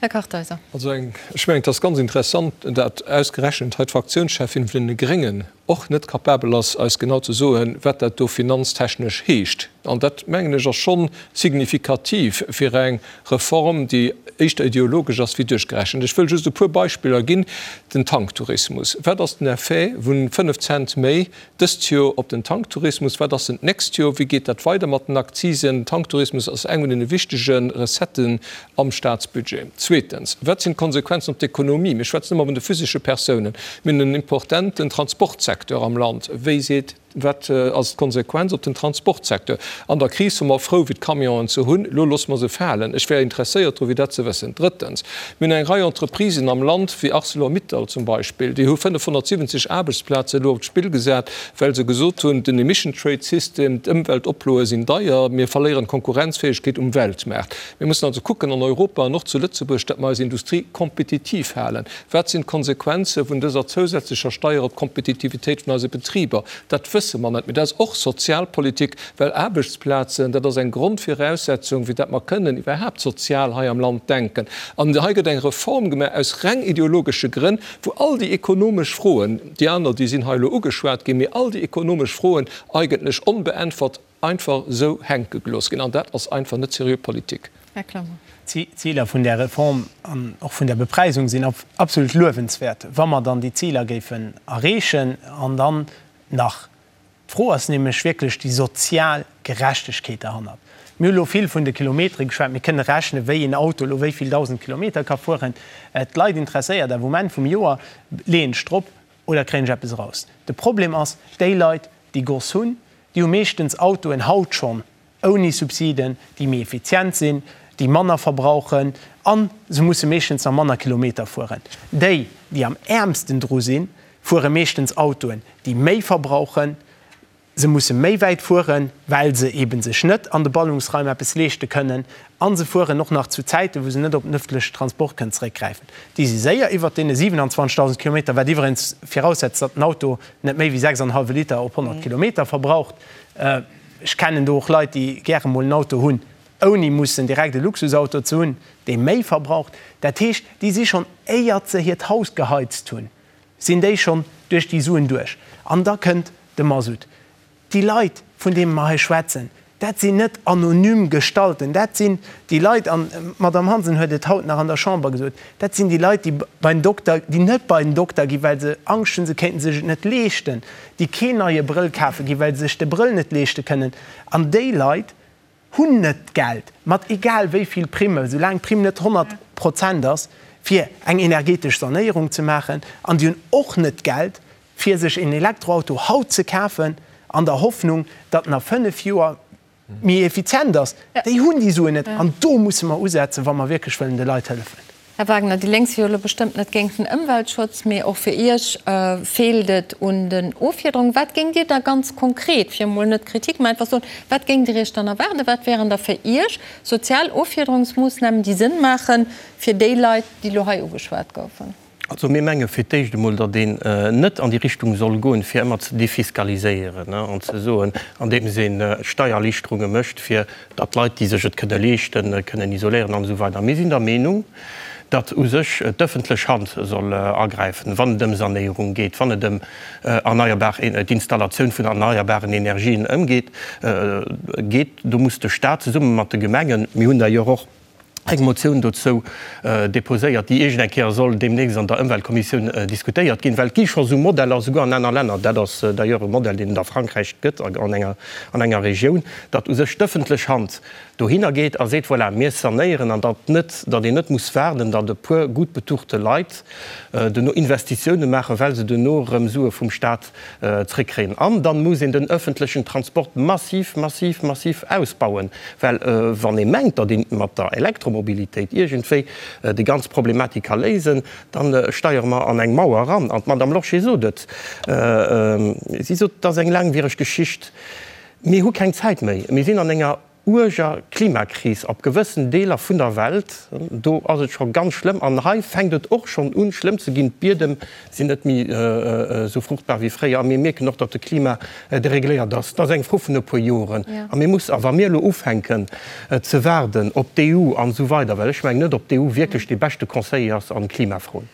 Här Kartheiser. Also eng, ech mengen, et ass ganz interessant, dat ausgerechent hei d'Fraktiounscheffin vun deene Gréngen och net capabel ass, eis genau ze soen, wat dat do finanztechnesch heescht. An dat, mengen ech, ass scho signifikativ fir eng Reform, déi éischter ideologesch ass wéi duerchgerechent. Ech wëll just e puer Beispiller ginn. Den Tanktourismus, Wat ass den Effet vu 5 Cent méi Dëst Joer op den Tanktourismus, wat ass en d'nächst Joer, wéi geet dat weider mat den Akzisen? Den Tanktourismus ass eng vun den wichtege Recetten am Staatsbudget. Zweetens, wat sinn d'Konsequenzen op d'Ekonomie? Mir schwätzen ëmmer vun de physesche Persounen. Mir hunn en importenten Transportsecteur am Land. Wéi seet. Wat ass d'Konsequenz op den Transportsecteur? An der Kris wor mer frou, fir d'Camionen ze hunn. Elo loosse mer se falen. Ech wär interesséiert dru fir dat ze wëssen. Drëttens, mir hunn eng Rei Entreprisen am Land, wéi Arcelor-Mittal zum Beispill, déi hu 570 Aarbechtsplaze elo op d'Spill gesat, well se gesot hunn, den Emission Trade System, d'Ëmweltoploe sinn deier, mir verléieren d'Konkurrenzfäegkeet um Weltmaart. Mir mussen also kucken an Europa an och zu Lëtzebuerg, datt mer eis Industrie kompetitiv halen. Wat sinn d'Konsequenze vun dëser zousätzlecher Steier op d'Kompetitivitéit vun eise Betriber? Dat wësse mer net. Mee dat ass och Sozialpolitik, well Aarbechtsplazen, dat ass eng Grondviraussetzung, fir datt mer kënnen iwwerhaapt sozial hei am Land denken. An hei gëtt eng Reform gemaach aus reng ideologesche Grënn, wou all déi ekonomesch Froen, déi aner, déi sinn hei elo ugeschwat ginn, mee all déi ekonomesch Froen eigentlech onbeäntwert einfach esou hänke gelooss ginn. An dat ass einfach net seriö Politik. Här Clement. D'Ziler vun där Reform an och vun där Bepreisung sinn absolut luewenswäert, wa mer dann déi Ziler géifen erreechen. An dann nach, d'Fro ass nämlech wierklech déi sozial Gerechtegkeet derhannert. Mir hu lo vill vun de Kilometere geschwat. Mir kënne rechnen, wéi een Auto elo wéi vill 1.000 Kilometer ka fueren. D'Leit interesséiert awer um Enn vum Joer, leeën ech drop oder kréien ech eppes eraus? De Problem ass, déi Leit, déi Goss hunn, déi hu meeschtens Autoen haut schonn ouni Subsiden, déi méi effizient sinn, déi manner verbrauchen a se musse meeschtens nach manner Kilometer fueren. Déi, déi am äermsten dru sinn, fuere meeschtens Autoen, déi méi verbrauchen. Se musse méi wäit fueren, well se eebe sech net an de Ballungsraim eppes leeschte kënnen a se fueren och nach zu Zäiten, wou se net op den ëffentlechen Transport kënnen zeréckgräifen. Déi si séier iwwert deene 27.000 Kilometer, wat iwweregens viraussetzt, datt den Auto net méi wéi 6 an hallwe Liter op 100 Kilometer verbraucht. Ech kennen do och Leit, déi gäre mol en Auto hunn, ouni mussen direkt e Luxusauto ze hunn, dee méi verbraucht. Dat heescht, déi si schonn, éiert se hiert Haus geheizt hunn, sinn déi schonn duerch déi Suen duerch. An da kënnt de Masutt. Déi Leit, vun deene mer hei schwätzen, dat sinn net anonym Gestalten, dat sinn déi Leit, an d'Madame Hansen huet et haut nach an der Chamber gesot, dat sinn déi Leit, déi bei den Dokter, déi net bei den Dokter ginn, well se Angscht hunn, se kéinten sech et net leeschten, déi keen neie Brëll kafe ginn, well se sech de Brëll net leeschte kënnen. An déi Leit hunn net d'Geld, mat egal wéi vill Primme, soulaang d'Primm net 100 Prozent ass, fir eng energetesch Sanéierung ze maachen. An déi hunn och net d'Geld, fir sech een Elektroauto haut ze kafen, an der Hoffnung, datt en a 5 Joer méi effizient ass. Déi hunn déi Suen net. An do musse mer usetzen, wa mer wierklech wëllen de Leit hëllefen. Här Wagner, déi Lénk si jo elo bestëmmt net géint den Ëmweltschutz, mee och fir Iech feelt et un den Offiederungen. Wat géingt Dir da ganz konkret, fir emol net Kritik, mä einfach soen, wat géingt Dir Iech dann erwaarden? Wat wären da fir Iech sozial Offiederungsmoossnamen, déi Sënn maache fir déi Leit, déi elo hei ugeschwat goufen? Also mir menge fir d'éischt emol, datt een net an déi Richtung soll goen, fir ëmmer ze defiskaliséieren an ze soen, andeems ee Steiererliichterunge mécht, fir datt d'Leit, déi sech et kënne leeschten, kënnen isoléieren an esou weider. Mir sinn der Meenung, datt u sech d'ëffentlech Hand soll agräifen, wann et ëm Sanéierung geet, wann et ëm erneierbar, d'Installatioun vun erneierbaren Energien ëmgeet, geet. Do muss de Stat zesumme mat de Gemengen, mir hunn d'ailleurs och eng Motioun dozou déposéiert, déi iergend eng Kéier soll deemnächst an der Ëmweltkommissioun diskutéiert ginn, well et gi scho sou Modeller, souguer an aner Länner, dat ass d'ailleurs e Modell, deen et a Frankräich gëtt an enger, an enger Regioun, datt u sech d'ëffentlech Hand dohinner geet a seet, voilà, mir sanéieren, an datt net, datt een net muss waarden, datt e puer gutt betuchte Leit duerno Investitiounen maachen, well se duerno erëm Sue vum Stat zréckkréien. An dann muss een den öffentlechen Transport massiv, massiv, massiv ausbauen, well wann ee mengt, datt een mat der Elektromobilitéit iergendwéi déi ganz Problematik ka léisen, da steiere mer an eng Mauer eran. An d'Madame Lorsché sot et, si sot, et ass eng laangwiereg Geschicht, mir hu keng Zäit méi, mir sinn an enger uerger Klimakris op gewëssen Deeler vun der Welt, do ass et scho ganz schlëmm an hei fänkt et och schonn un schlëmm ze ginn. D'Biedem sinn net méi esou fruchtbar wéi fréier a mir mierken och, datt de Klima deregléiert ass. Dat ass eng Fro vun e puer Joren a mir mussen, a wa mir elo ufänken ze waarden op d'EU an esou weider, well ech mengen net, ob d'EU wierklech dee beschte Conseiller ass an Klimafroen.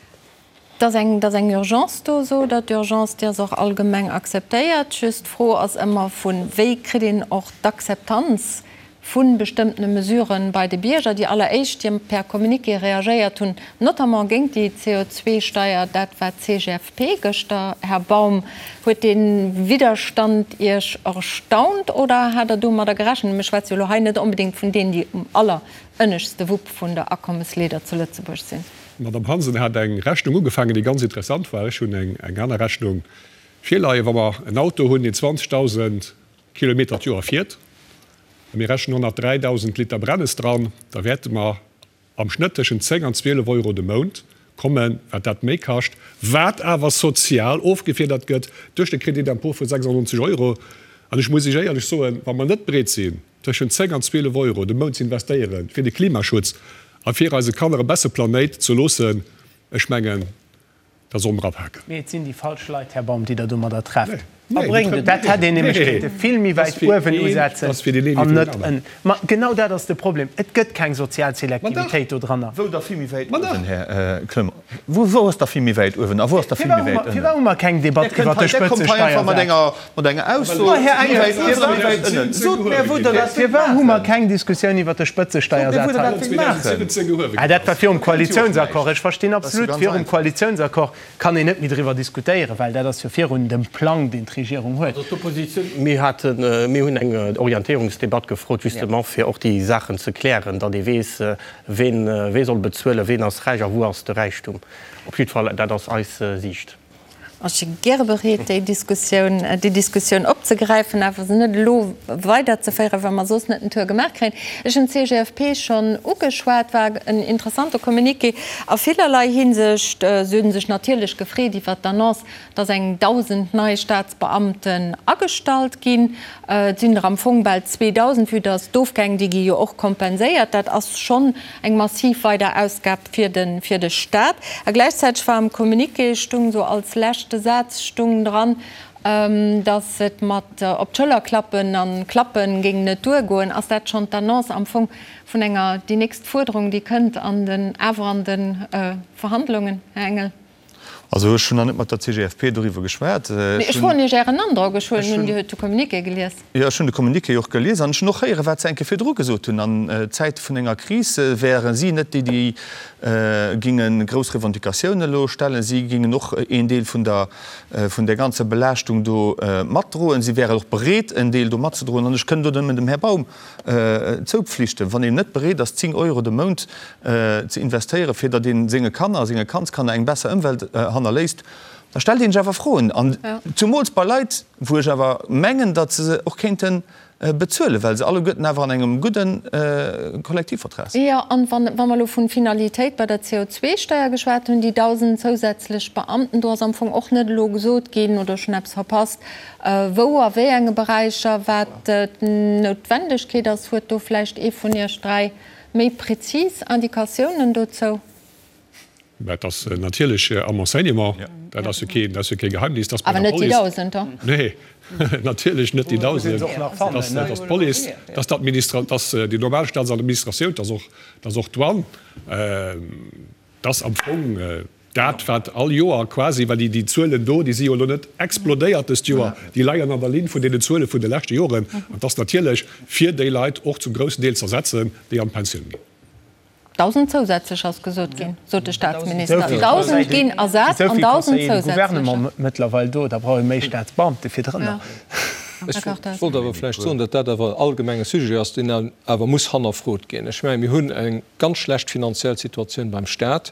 Et ass eng, et ass eng Urgence do, sot Der. D'Urgence, déi ass och allgemeng akzeptéiert. Just d'Fro ass ëmmer vun, wéi kritt een och d'Akzeptanz vu bestëmmtene Mesuren bei de Bierger? Déi alleréischt, déi per Communiqué reagéiert hunn, notamment géint déi CO2-Steier, dat war d'CGFP gëschter. Här Baum, huet dee Widderstand Iech erstaunt oder hat Der domadder gerechent? Mir schwätze jo elo hei net onbedéngt vun deenen, déi um allerënneschtste Wupp vun der Akommesleeder zu Lëtzebuerg sinn. D'Madame Hansen hat eng Rechnung ugefaangen, déi ganz interessant war. Ech hunn eng aner Rechnung. Virleien. Wa mer en Auto hunn, deen 20.000 Kilometer d'Joer fiert, a mir rechnen 103.000 Liter Brennes dran, da wäerte mer am Schnëtt tëschent 10 an 12 Euro de Mount kommen, wat dat méi kascht, wat awer sozial ofgefiedert gëtt duerch de Crédit d'impôt vu 96 Euro. An ech muss Iech éierlech soen, wa mer net bereet sinn, tëschent 10 an 12 Euro de Mount ze investéiere fir de Klimaschutz a fir eise Kanner e besse Planéit ze loossen, ech mengen, da solle mer apaken. Mee et sinn déi falsch Leit, Här Baum, déi Der domadder trefft. Dat hätt een nämlech kéinte vill méi wäit uewen usetzen an net ënnen. Ma genau dat ass de Problem, Et gëtt keng sozial Selektivitéit dodranner. Wou da vill méi wäit uewen, Här Clement? Wou ass da vill méi wäit uewen a wou ass da vill méi wäit ënnen? Firwat hu mer keng Debatt iwwert de Spëtzesteiersaz? Mat enger Ausso, méi wäit uewen a méi wäit ënnen. Sot mär, wou Der dat wéilt Firwat hu mer keng Diskussioun iwwert de Spëtzesteiersaz hei? Ah, dat war virum Koalitiounsaccord. Ech verstinn absolut, virum Koalitiounsaccord kann een net méi driwwer diskutéieren, well dat ass jo virun dem Plang, deen d'Regierung huet. Also d'Oppositioun, mir haten, mir hunn eng Orientéierungsdebatt gefrot, justement fir och déi Saachen ze klären, datt ee weess, ween, wee soll bezuelen, ween ass räich a wou ass de Räichtum. Op jiddwer Fall, dat ass eis Siicht. Ech si gäre bereet, déi Diskussioun, déi Diskussioun opzegräifen, awer se net elo weiderzeféieren, well mer soss net den Tour gemaach kréien. Ech hunn d'CGFP schonn ugeschwat, war en interessante Communiqué a villerlei Hinsicht. Se hu sech natierlech gefreet iwwert d'Annonce, dass eng 1.000 nei Staatsbeamten agestallt ginn. Et sinn der am Fong bal 2.000, vue dass d'Ofgäng, déi gi jo och kompenséiert. Dat ass schonn eng massiv weider Ausgab fir de fir de Staat. A gläichzäiteg war am Communiqué, stung esou als leschte Saz stung dran, dass et mat op d'Schëller klappen an klappen géing net duergoen. Ass dat schonn d'Annonce am Fong vun enger déi nächst Fuerderung, déi kënnt an den awer an de Verhandlungen, Här Engel? Also ech hunn nach net mat der CGFP doriwwer geschwat. Mee ech froen Iech Ären Androck. Ech huelen un, Dir hutt de Communiqué gelies. Jo, ech hunn de Communiqué och gelies an ech hunn och héieren, wat se eng Kéier virdru gesot hunn. An Zäite vun enger Kris wäre si net déi, déi ginge grouss Revendicatiounen elo stellen. Si gingen och een Deel vun der, vun där ganzer Belaaschtung do matdroen. Si wären och bereet, en Deel do matzedroen. An ech kënn do nëmmen dem Här Baum zoupflichten, wann een net bereet ass, 10 Euro de Mount ze investéieren, fir datt ee senge Kanner a senge Kandskanner eng besser Ëmwelt hannerléisst, da stellt ee sech awer Froen. An zumools bei Leit, wou ech awer mengen, datt se se och kéinte bezuelen, well se alleguerten awer an engem gudde Kollektivvertrag sinn. Jo, an wa mer elo vun Finalitéit bei der CO2-Steuer geschwat hunn, déi 1.000 zousätzlech Beamten, do ass am Fong och net elo gesot ginn, oder ech hunn eppes verpasst, Wou a wéi enge Beräicher, wat d'Noutwendegkeet ass, huet do vläicht ee vun Iech 3 méi prezis Indikatiounen dozou? Mä et ass natierlech am Enseignement, dat ass jo keen, dat ass jo kee Geheimnis, dass bei der Police. Awer net déi 1.000, Nee, natierlech net déi 1.000. Dat ass d'Police, dat ass d'Administra, dat ass déi normal Staatsadministratioun, dat ass och, dat ass och d'Douane. Dat ass am Fong dat, wat all Joer quasi, well déi Zuelen do, déi si jo elo net explodéiert dëst Joer, déi leien an der Linn vun deenen Zuele vun de leschte Joren. An et ass natierlech fir déi Leit och zum groussen Deel z'ersetzen, déi an d'Pensioun ginn. 1.000 zousätzlech ass gesot ginn, sot de Staatsminister. 1.000 ginn ersat an 1.000 zousätzlecher. Gouvernement mëttlerweil do, da brauch ee méi Staatsbeamte virdrënner. Ech wollt awer vläicht soen, datt dat awer en allgemenge Sujet ass, deen awer muss hannerfrot ginn. Ech mengen, mir hunn eng ganz schlecht finanziell Situatioun beim Stat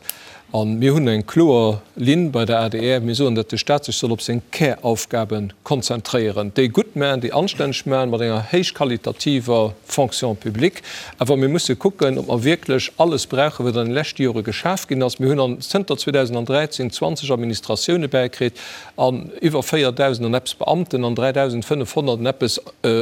a mir hunn eng kloer Linn bei der adr. Mir soen, datt de Stat sech soll op seng Käraufgabe konzentréieren, déi gutt maachen, déi anstänneg maachen, mat enger héichqualitativer Fonction publique. Awer mir musse kucken, ob mer wierklech alles brauchen, wat an de leschte Jore geschaf ginn ass. Mir hunn an zënter 2013 20 Administratioune bäikritt. an iwwer 4.000 an eppes Beamten an 3.500 an eppes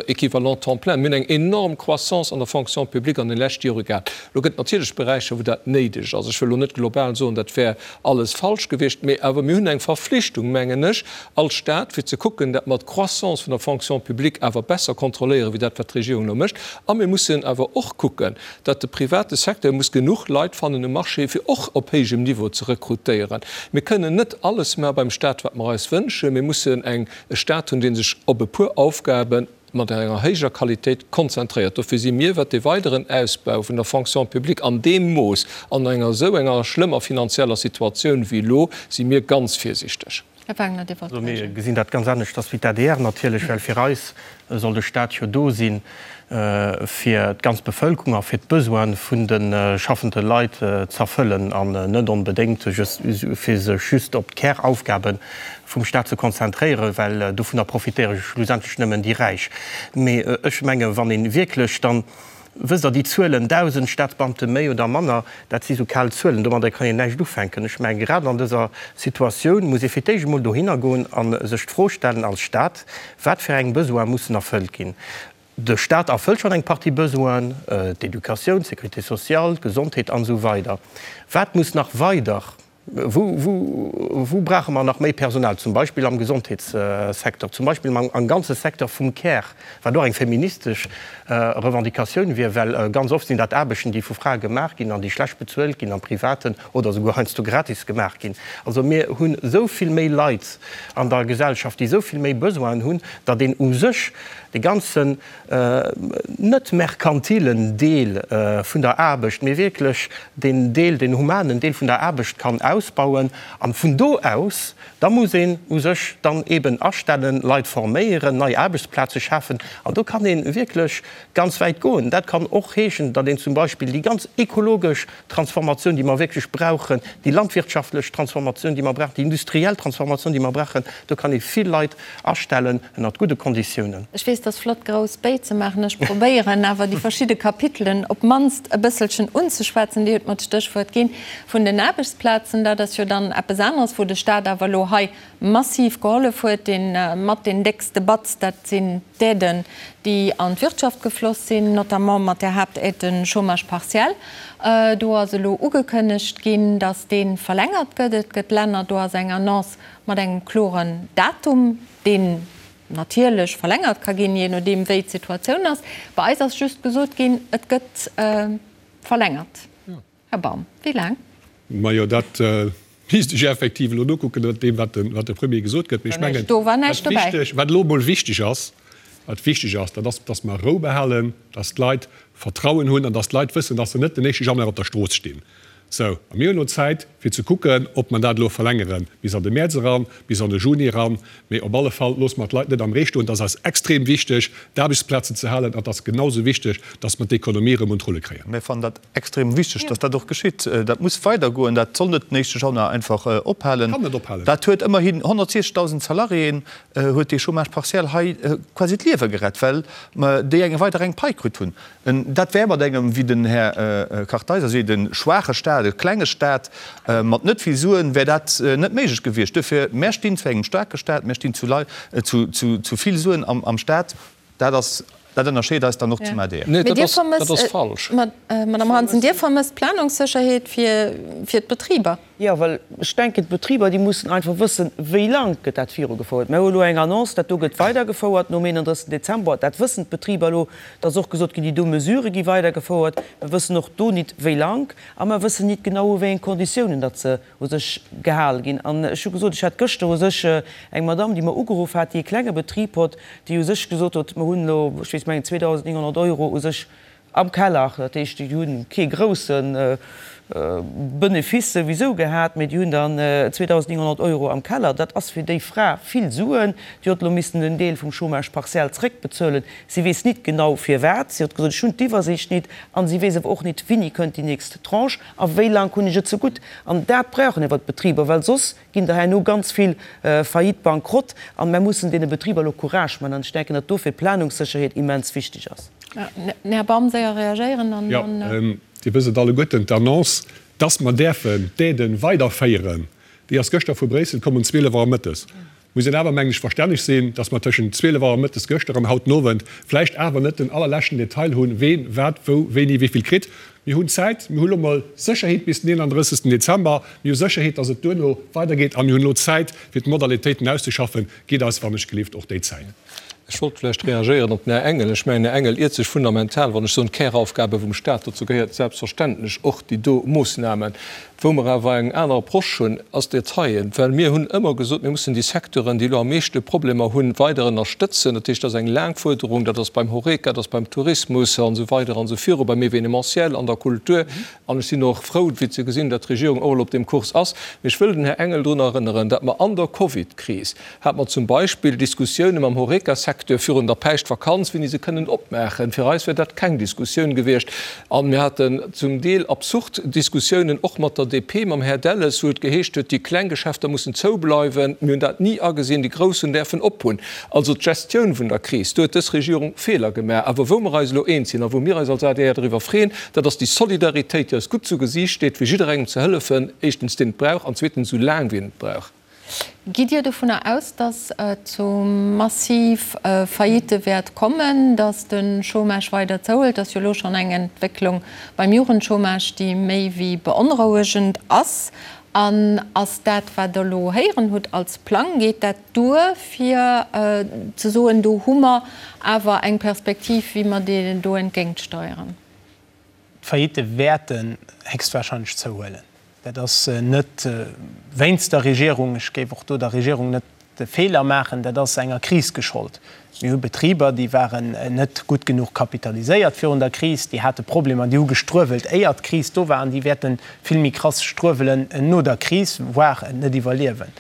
Équivalents temps plein. Mir hunn eng enorm Croissance an der Fonction publique an de leschte Jore gehat. Elo gëtt et natierlech Beräicher, wou dat néideg ass. Ech wëll elo net global soen, dat wär alles falsch gewiescht, mee awer mir hunn eng Verflichtung, mengen ech, als Stat, fir ze kucken, dat mer d'Croissance vun der Fonction publique awer besser kontrolléieren, wéi dat, wat d'Regierung elo mécht. A mir mussen awer och kucken, datt de private Secteur muss genuch Leit fannen um Marché, fir och op héijem Niveau ze rekrutéieren. Mir kënnen net alles maache beim Stat, wat mer eis wënschen. Mir mussen eng e Stat hunn, dee sech op e puer Aufgabe mat enger héijer Qualitéit konzentréiert. Dofir si mir, wat de weideren Ausbau vun der Fonction publique an deem Mooss an enger esou enger schlëmmer finanzieller Situatioun wéi elo, si mir ganz virsichteg. Här Wagner, Dir wollt Also mir gesinn dat ganz aneschters wéi d'ADR natierlech, well fir eis soll de Stat jo do si fir d'ganz Bevëlkerung a fir d'Besoine vun de schaffende Leit z'erfëllen an net onbedéngt fir sech just op d'Käraufgabe vum Stat ze konzentréieren, well dovunner profitéiere schlussendlech nëmmen déi Räich. Mee ech menge wann ee wierklech dann, wësst Der, déi Zuelen, 1.000 Staatsbeamte méi oder manner, dat si sou kal Zuelen, domadder kann een näischt ufänken. Ech menge grad an dëser Situatioun muss ee fir d'éischt emol dohinner goen a sech d'Fro stellen als Stat, Wat fir eng Besoine mussen erfëllt ginn? De Stat erfëllt schonn eng Partie Besoinen, d'Educatioun, d'Sécurité sociale, d'Gesondheet an esou weider. Wat muss nach weider, wou, wou, wou brauche mer nach méi Personal? Zum Beispill am Gesondheetssecteur, zum Beispill am ganze Secteur vum Care, wat och eng feministesch Revendicatioun wier, well ganz oft sinn dat Aarbechten, déi vu Frae gemaach ginn an déi schlecht bezuelt ginn am Privaten oder souguer heiansdo gratis gemaach ginn. Also mir hunn esou vill méi Leit an der Gesellschaft, déi esou vill méi Besoinen hunn, datt een u sech de ganzen net merkantilen Deel vun der Aarbecht, mee wierklech deen Deel, deen humanen Deel vun der Aarbecht kann ausbauen. An vun do aus, da muss een u sech dann eeben astellen, Leit forméieren, nei Aarbechtsplaze schafen. An do kann ee wierklech ganz wäit goen. Dat kann och heeschen, datt een zum Beispill déi ganz ekologesch Transformatioun, déi mer wierklech brauchen, déi landwirtschaftlech Transformatioun, déi mer brauchen, déi industriell Transformatioun, déi mer brauchen, do kann ee vill Leit astellen ënnert gudde Konditiounen. Ech weess, 't ass flott, grouss Béi ze maachen. Ech probéieren awer, déi verschidde Kapitelen op d'mannst e bësselchen unzeschwätzen. Dir hutt mer d'Stéchwuert ginn vun den Aarbechtsplazen. Dat ass jo dann eppes aneres, wou de Stat awer elo hei massiv gehollef huet, dee mat deen déckste Batz, dat sinn d'Aiden, déi an d'Wirtschaft gefloss sinn, notamment mat där Haaptaide Chômage partiel. Do ass elo ugekënnegt ginn, datt dee verlängert gëtt. Et gëtt Länner, do ass eng Annonce mat engem kloren Datum, deen natierlech verlängert ka ginn, jee nodeem wéi d'Situatioun ass. Bei eis ass just gesot ginn, et gëtt verlängert. Här Baum, wéi laang? Majo, dat misst ech effektiv elo nokucken, no deem, wat de Premier gesot gëtt. Mee ech mengen, Do war näischt wat dobäi. wichteg, wat elo emol wichteg ass, wat wichteg ass, dat ass, dass mer Rou behalen, dass d'Leit Vertrauen hunn an dass d'Leit wëssen, dass se net den éischte Januar op der Strooss stinn. Sou, a mir hunn elo Zäit, fir ze kucken, ob mer dat elo verlängere bis an de Mäerz eran, bis an de Juni eran. Mee op alle Fall loosse mer d'Leit net am Ree stoen. Et ass eis extrem wichteg, d'Aarbechtsplazen ze halen, an et ass genau esou wichteg, dass mer d'Ekonomie erëm un d'Rulle kréien. Mir fannen dat Extrem wichteg, dass dat och geschitt. Dat muss weidergoen. Dat soll net den éischte Januar einfach ophalen. Kann net ophalen. Dat huet ëmmerhin 160.000 Salariéen huet dee Chômage partiel hei quasi d'Liewe gerett, well déi eng weider eng Pai kritt hunn. Dat wär mat engem, wéi den Här Kartheiser seet, e schwaache Stat, e klenge Stat mat net vill Suen, wär dat net méiglech gewiescht. Duerfir, mär stinn zu engem staarke Stat, mär stinn zu Leit, zu vill Suen am Stat. Dat ass, dat ënnerscheet eis dann och zum adr. Nee, dat ass, dat ass falsch. Madame Hansen, Dir vermësst Planungssécherheet fir, fir d'Betriber? Jo, well ech denken, d'Betriber, déi mussen einfach wëssen, wéi lang gëtt dat virugefouert. Mir hu elo eng Annonce, dat do gëtt weidergefouert nom 31. Dezember. Dat wëssen d'Betriber elo. Et ass och gesot ginn, déi do Mesurë gi weidergefouert. Mir wëssen och do nit, wéi lang. A mer wëssen nit genau, u wéi eng Konditiounen datt se u sech gehal ginn. An ech hu gesot, ech hat gëschter u sech eng Madamm, déi mer ugeruff hat, déi e klenge Betrib hott, déi u sech gesot huet, mer hunn elo, ech weess, mengen 2.900 Euro u sech am Keller. Dat heescht, déi hu kee grousse Benefice souwisou gehat, mee déi hunn dann 2.900 Euro am Keller. Dat ass fir déi Fra vill Suen. Déi huet elo missen en Deel vum Chômage partiel zréckbezuelen. Si weess nit genau firwat. Si huet gesot, ech hunn d'Iwwersiicht nit. An si weess awer och nit, wéini kënnt déi nächst Tranche. A wéi laang hunn ech et zegutt? An dat brauchen awer d'Betriber, well soss ginn der herno ganz vill Faillite, Bankrott. An mer mussen deene Betriber elo Courage man. An ech denken, datt dofir d'Planungssécherheet immens wichteg ass. Här Baum, séier reagéieren an dann. Jo, Dir wësst et alleguerten, d'Annonce, dass mer däerfen d'Aiden weiderféieren, déi ass gëschter vu Bréissel komm um 12 Auer mëttes. Muss een awer, mengen ech, verstänneg sinn, dass mer tëschent 12 Auer mëttes gëschter an haut den Owend vläicht awer net den allerleschten Detail hunn, ween wat wou wéini wéivill kritt. Mir hunn Zäit, mir hu lo mol Sécherheet bis den 31. Dezember, mir hu Sécherheet, dass et duerno weidergeet a mir hunn elo Zäit, fir d'Modalitéiten auszeschaffen. Gitt eis wannechgelift och déi Zäit. Ech wollt vläicht reagéieren op den Här Engel. Ech mengen, den Här Engel iert sech fundamental, wann ech soen, d'Käraufgabe vum Stat, dozou gehéiert selbstverständlech och déi do Moossnamen. Wou mer awer eng aner Approche hunn, ass d'Detaillen. Well mir hunn ëmmer gesot, mir mussen déi Secteuren, déi elo am meeschte Problemer hunn, weider ënnerstëtzen. Dat heescht, dat ass eng laang Fuerderung, dat ass beim Horeca, dat ass beim Tourismus an esou weider an esou viru, beim Événementiel, an der. der Kultur. An ech sinn och frou, fir ze gesinn, datt d'Regierung och elo op deem Kurs ass. Mee ech wëll den Här Engel drun erënneren, datt mer an der Covidkris hate mer zum Beispill Diskussioune mam Horeca-Secteur virun der Päischtvakanz, wéini se kënnen opmaachen. Fir eis wär dat keng Diskussioun gewiescht. A mir haten zum Deel absurd Diskussiounen och mat der DP, mam Här Delles, wou et geheescht huet, déi kleng Geschäfter mussen zoubleiwen. Mir hunn dat ni agesinn, déi grouss hunn däerfen ophunn. Also d'Gestioun vun der Kris, do huet dës Regierung Feeler gemaach. Awer wou mer eis elo eens sinn a wou mir eis als adr driwwer freeën, dat ass déi Solidaritéit, déi eis gutt zu Gesiicht steet, fir jidderengem ze hëllefen, éischtens deen et brauch an zweetens esou laang wéi en et brauch. Gitt Dir dovunner aus, datt et zu massiv Faillitte wäert kommen, datt de Chômage weider zouhëlt? Et ass jo elo schonn eng Entwécklung beim Jugendchômage, déi méi wéi beonrouegend ass. An ass dat, wat Der elo héieren hutt als Plang, geet dat duer, fir ze soen, do hu mer awer eng Perspektiv, wéi mer deenen do entgéintsteieren? D'Faillitte wäerten héchstwahrscheinlech zouhuelen. Dat ass net wéinst der Regierung, ech géif och do der Regierung net de Feeler maachen, dat ass enger Kris geschollt. Mir hu Betriber, déi waren net gutt genuch kapitaliséiert virun der Kris, déi hate Problemer, déi hu gestruewelt, éier d'Kris do war, an déi wäerte vill méi krass struewelen no der Kris, voire et net iwwerliewen.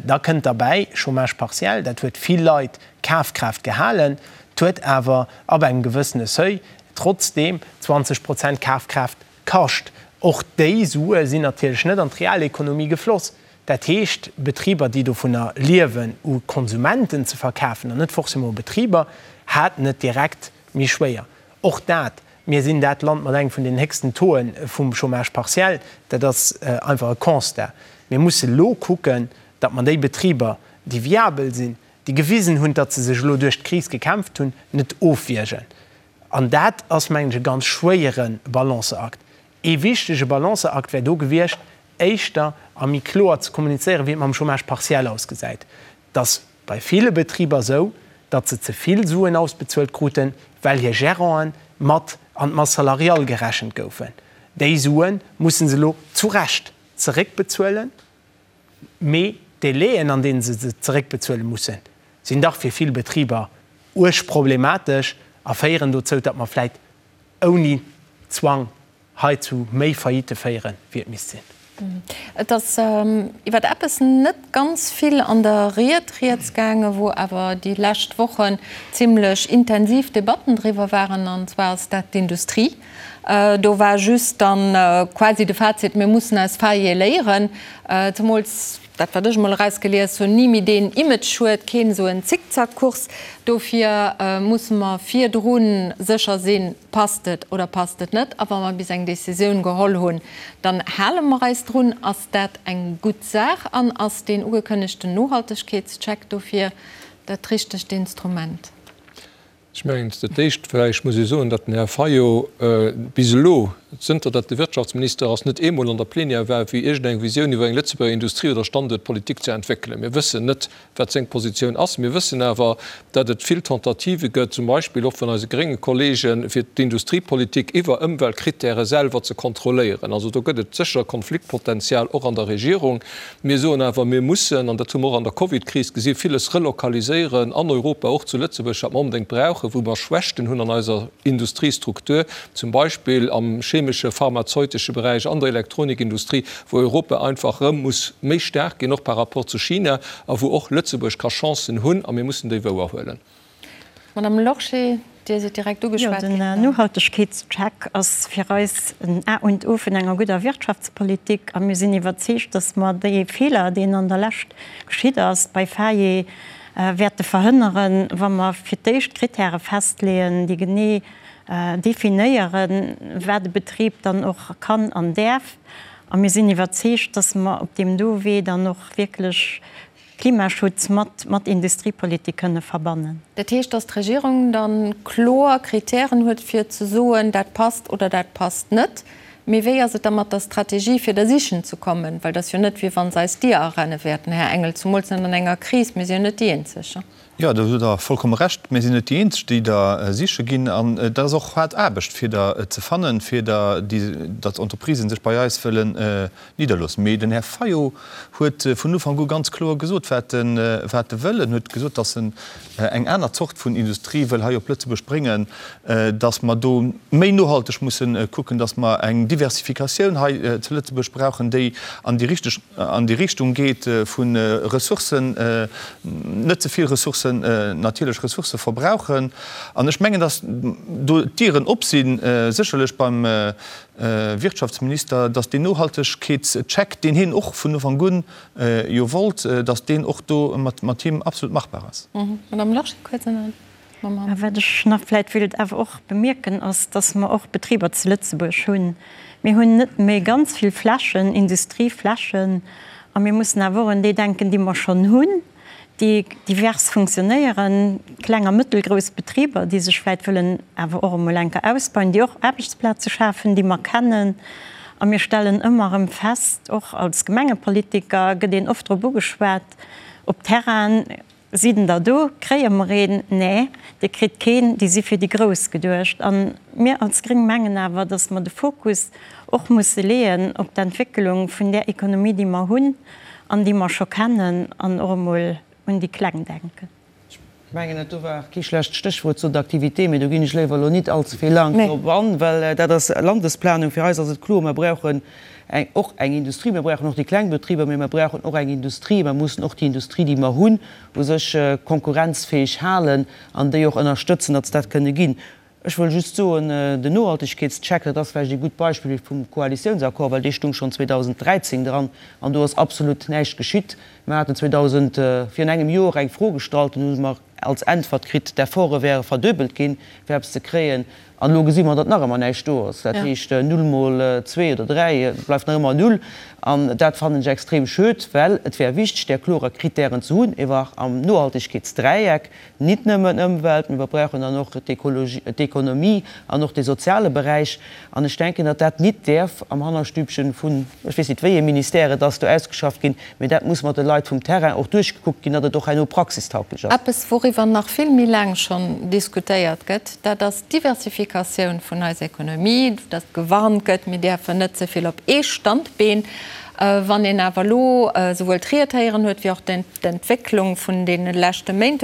Da kënnt derbäi, Chômage partiel, dat huet vill Leit Kafkraaft gehalen, 't huet awer ab engem gewëssene Seuil trotzdeem 20 Prozent Kafkraaft kascht. Och déi Sue sinn natierlech net an d'Realekonomie gefloss. Dat heescht, Betriber, déi dovunner liewen, u Konsumenten ze verkafen, an net forcément u Betriber, haten et direkt méi schwéier. Och dat, mir sinn dat Land mat engem vun den héchsten Tauxen vum Chômage partiel, dat ass einfach e Constat. Mir musse lo kucken, datt mer déi Betriber, déi viabel sinn, déi gewisen hunn, datt se sech elo duerch d'Kris gekämpft hunn, net ofwiergen. An dat ass, mengen ech, e ganz schwéiere Balanceakt. Ee wichtege Balanceakt wär do gewiescht, éischter a méi kloer ze kommunizéieren, wéi et mam Chômage partiel ausgesäit. Et ass bei ville Betriber esou, datt se ze vill Suen ausbezuelt kruten, well hir Geranten mat an d'Masse salariale gerechent goufen. Déi Sue musse se elo zu Recht zeréckbezuelen. Mee d'Délaiën, an deene se se zeréckbezuele mussen, sinn dach fir vill Betriber uerg problematesch a féieren dozou, datt mer vläit ouni Zwang hei zu méi Faillitte féieren, wéi et misst sinn. Et ass iwwer eppes net ganz vill an der Ried rieds gaangen, wou awer déi lescht Wochen zimlech intensiv Debatten driwwer waren, an zwar ass dat d'Industrie. Do war just dann quasi de Fazit, mir mussen aus Faillië léieren. Zemools dat, wat ech emol erausgelies hunn, ni méi deen Image huet, keen esou en Zickzackkurs. Dofir musse mer virdru sécher sinn, passt et oder passt et net. A wa mer bis eng Decisioun geholl hunn, dann hale mer eis drun. Ass dat eng gutt Saach an ass deen ugekënnegten Nohaltegkeetscheck dofir dat richtegt Instrument? Ech mengen, dat Éischt vläicht muss ee soen, datt den Här Fayot bis elo, zënter datt e Wirtschaftsminister ass, net eemol an der Plenière war, fir iergendeng Visioun iwwer eng Lëtzebuerger Industrie oder Standuertpolitik ze entwéckelen. Mir wëssen net, wat seng Positioun ass. Mir wëssen awer, datt et vill Tentativë gëtt, zum Beispill och vun eise grénge Kollegen, fir d'Industriepolitik iwwer Ëmweltkrittäre selwer ze kontrolléieren. Also do gëtt et sécher Konfliktpotenzial och an der Regierung. Mir soen awer, mir mussen, an dat hu mer och an der Covidkris gesinn, villes relokaliséieren an Europa, och zu Lëtzebuerg, wat mer onbedéngt brauchen, wou mer Schwächten hunn an eiser Industriestruktur, zum Beispill am chemesche, pharmazeutesche Beräich, an der Elektronikindustrie, wou Europa einfach erëm muss méi staark ginn, och par rapport zu China, a wou och Lëtzebuerg ka Chancen hunn, a mir mussen déi wouerhuelen. Madame Lorsché, Dir sidd direkt ugeschwat ginn. Jo, den Nohaltegkeetscheck ass fir eis en A und O vun enger gudder Wirtschaftspolitik. A mir sinn iwwerzeegt, dass mer dee Feeler, deen an der Lescht geschitt ass bei Faye, wäerte verhënneren, wa mer fir d'éischt Kritäre festleeën, déi genee definéieren, wat e Betrib dann och kann an däerf. A mir sinn iwwerzeegt, dass mer op deem do Wee dann och wierklech Klimaschutz mat mat Industriepolitik kënne verbannen. Dat heescht, datt d'Regierung da kloer Kritären huet fir ze soen, dat passt oder dat passt net. Mee wéi ass et da mat der Strategie, fir der sichen ze kommen? Well et ass jo net, wéi wa se eis d'Dier arenne wäerten, Här Engel, zumools net an enger Kris. Mir si jo net déi Eenzeg. Jo, do hutt Der vollkomme Recht. Mir sinn net déi Eenzeg, déi der siche ginn. An et ass och haart Aarbecht, fir der ze fannen, fir der, déi, datt Entreprisen sech bei eis wëllen nidderloossen. Mee den Här Fayot huet vun Ufank u ganz kloer gesot, wat e, wat e wëll. En huet gesot, datt en eng aner Zort vun Industrie wëll hei op Lëtzebuerg bréngen, datt mer do méi nohalteg mussen kucken, datt mer eng Diversifikatioun hei zu Lëtzebuerg brauchen, déi an déi richteg, an déi Richtung geet vu Ressourcen, net ze vill Ressourcen, natierlech Ressourcë verbrauchen. An ech mengen, datt do d'Dieren op sinn, sécherlech beim Wirtschaftsminister, datt deen Nohaltegkeetscheck, deen hien och vun Ufank un jo wollt, datt deen och do mat him absolut machbar ass. Madame Lorsché, kuerz an dann mam Hand. Wat ech nach vläicht wéilt awer och bemierken, ass, datt mer och Betriber zu Lëtzebuerg hunn. Mir hunn net méi ganz vill Flächen, Industrieflächen, a mir mussen awer och un déi denken, déi mer schonn hunn, déi divers funktionéieren, kleng a mëttelgrouss Betriber, déi sech vläicht wëllen awer och emol eng Kéier ausbauen, déi och Aarbechtsplaze schafen, déi mer kennen. A mir stellen ëmmer erëm fest, och als Gemengepolitiker gëtt een oft drop ugeschwat, op Terrainen, Sinn der do? Kréie mer een? Nee, Dir kritt keen, déi si fir déi Grouss geduecht. A mir als Gréng mengen awer, datt mer de Fokus och musse leeën op d'Entwécklung vun där Ekonomie, déi mer hunn an déi mer scho kennen, an och emol un déi Kleng denken. Ech mengen, dat do war kee schlecht Stéchwuert, Zone d'activité, mee do ginn ech léiwer elo nit allze vill laang drop an, well dat ass Landesplanung. Fir eis ass et kloer, Mer brauchen eng, och eng Industrie. Mir brauchen och déi kleng Betriber, mee mer brauchen och eng Industrie. Mer mussen och déi Industrie, déi mer hunn, u sech konkurrenzfäeg halen an déi och ënnerstëtzen, datt se dat kënne ginn. Ech wëll just soen, den Nohaltegkeetscheck, dat ass vläicht ee gutt Beispill vum Koalitiounsaccord, well dee stung schonn 2013 dran an do ass absolut näischt geschitt. Mer haten 2000, virun engem Joer eng Fro gestallt, dunn hu mer als Äntwert kritt, d'Efforte wäre verduebelt ginn, fir eppes ze kréien. An elo gesi mer, datt nach ëmmer näischt do ass. Dat heescht, null mol zwee oder dräi bleift nach ëmmer null. An dat fannen ech extrem schued, well et wär wichteg, där klorer Kritären ze hunn, ewer am Nohaltegkeetsdräieck, nit nëmmen Ëmwelt, mee mer brauchen dann och d'Ekologie, d'Ekonomie an och de soziale Beräich. An ech denken, datt dat nit däerf am Hannerstübchen vun, ech weess nit, wéi ee Ministère et ass, do ausgeschafft ginn, mee dat muss mat de Leit vum Terrain och duerchgekuckt ginn, datt et och herno praxistauglech ass. Eppes, wouriwwer nach vill méi laang schonn diskutéiert gëtt, dat ass d'Diversifikatioun vun eiser Ekonomie, datt gewarnt gëtt, mir däerfen net ze vill op ee Standbeen. Wann een awer elo esouwuel d'Ried héieren huet, wéi och d'Entwécklung vun deene leschte Méint,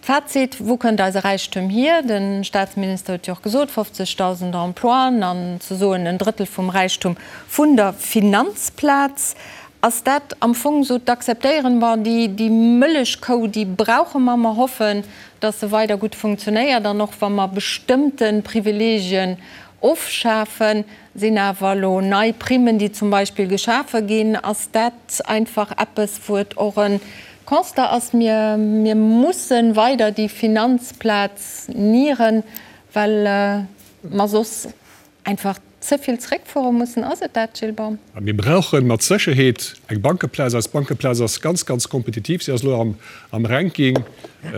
Fazit, Wou kënnt eise Räichtum hier? De Staatsminister huet jo och gesot, 50.000 Emploien an ze soen en Drëttel vum Räichtum vun der Finanzplaz. Ass dat am Fong esou z'akzeptéieren, Bon, déi Mëllechkou, déi brauche mer, mer hoffen, datt se weider gutt funktionéiert an och wa mer bestëmmte Privilegien ofschafen, Sinn awer elo nei Primmen, déi zum Beispill geschafe ginn, ass dat einfach eppes, wou et och e Constat ass, mir, mir musse weider déi Finanzplaz nieren, well mer soss einfach ze vill zréckfuere mussen. Ass et dat, Gilles Baum? Mir brauche mat Sécherheet eng Bankeplaz. Eis Bankeplaz ass ganz, ganz kompetitiv. Si ass elo am Ranking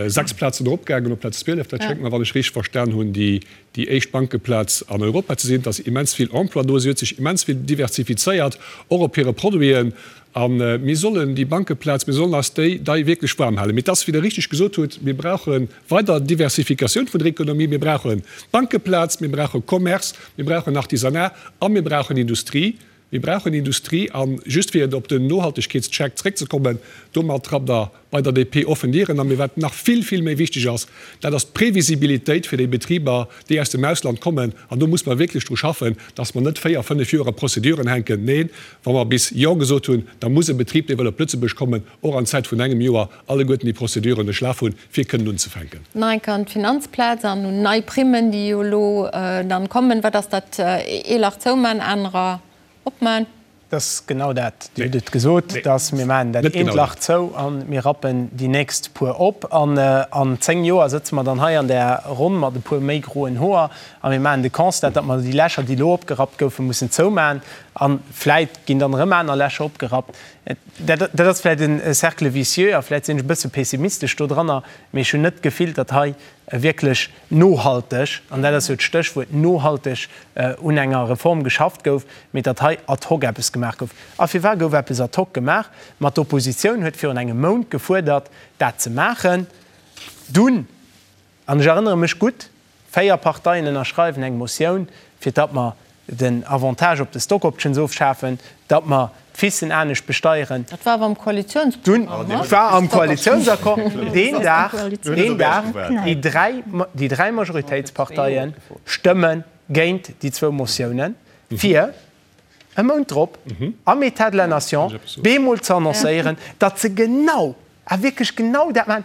6 Plazen eropgaangen op Plaz 12. Dat schéngt mer, wann ech richteg verstan hunn, déi déi éischt Bankeplaz an Europa ze sinn. Et ass immens vill Emploi do, si huet sech immens vill diversifizéiert, och op hire Produiten. A mir sollen déi Bankeplaz, mir sollen eis déi dei wierklech waarm halen. Mee et ass, wéi Der richteg gesot hutt, mir brauche weider Diversifikatioun vun der Ekonomie. Mir brauchen d'Bankeplaz, mir brauche Commerce, mir brauchen Artisanat a mir brauchen Industrie. Mir brauchen Industrie. A just fir op den Nohaltegkeetscheck zréckzekommen, domat trappt Der bei der DP offen Dieren an. Mee wat nach vill, vill méi wichteg ass, dat ass d'Previsibilitéit fir déi Betriber, déi aus dem Ausland kommen. An do muss mer wierklech dru schaffen, dass mer net véier, fënnef Joer a Prozeduren hänken. Neen, wa mer bis Jo gesot hunn, da muss e Betrib, dee wëll op Lëtzebuerg kommen, och an Zäit vun engem Joer alleguerten déi Prozeduren duerchlaf hunn, fir kënnen unzefänken. Nach eng Kéier an d'Finanzplaz an un nei Primmen, déi jo elo dann kommen. Wat ass dat? Ee Lach zouman, anerer opman? Dat ass genau dat. Dir hutt et gesot, dass mir maachen dat eent Lach zou a mir rappen déi nächst puer op. An an 10 Joer sëtze mer dann hei an där Ronn mat e puer méi groen Hoer a mir maachen de Constat, datt mer déi Lächer, déi elo opgerappt goufen, mussen zoumachen. A vläit ginn dann erëm aner Lächer opgerappt. Dat ass vläit e Cercle vicieux a vläit sinn ech e bësse pessimistesch do dranner, mee ech hunn net d'Gefill, datt hei. wierklech nohalteg, an dat ass jo d'Stéchwuert, nohalteg un enger Reform geschafft gouf, mee datt hei ad hoc eppes gemaach gouf. A firwat gouf eppes ad hoc gemaach? Ma d'Oppositioun huet virun engem Mount gefuerdert, dat ze maachen. Dunn, an ech erënnere mech gutt, 4 Parteien ënnerschreiwen eng Motioun, fir datt mer den Avantage op de Stock Options ofschafen, datt mer d'FICen anescht besteieren. Dat war awer am Koalitiounsprogramm, ne? Dat war am Koalitiounsaccord. Deen Dag, deen Dag, déi dräi, déi dräi Majoritéitsparteie stëmme géint déi zwou Motiounen, fir e Mount drop am État de la Nation bemol ze annoncéieren, datt se genau, a wierklech genau dat maachen,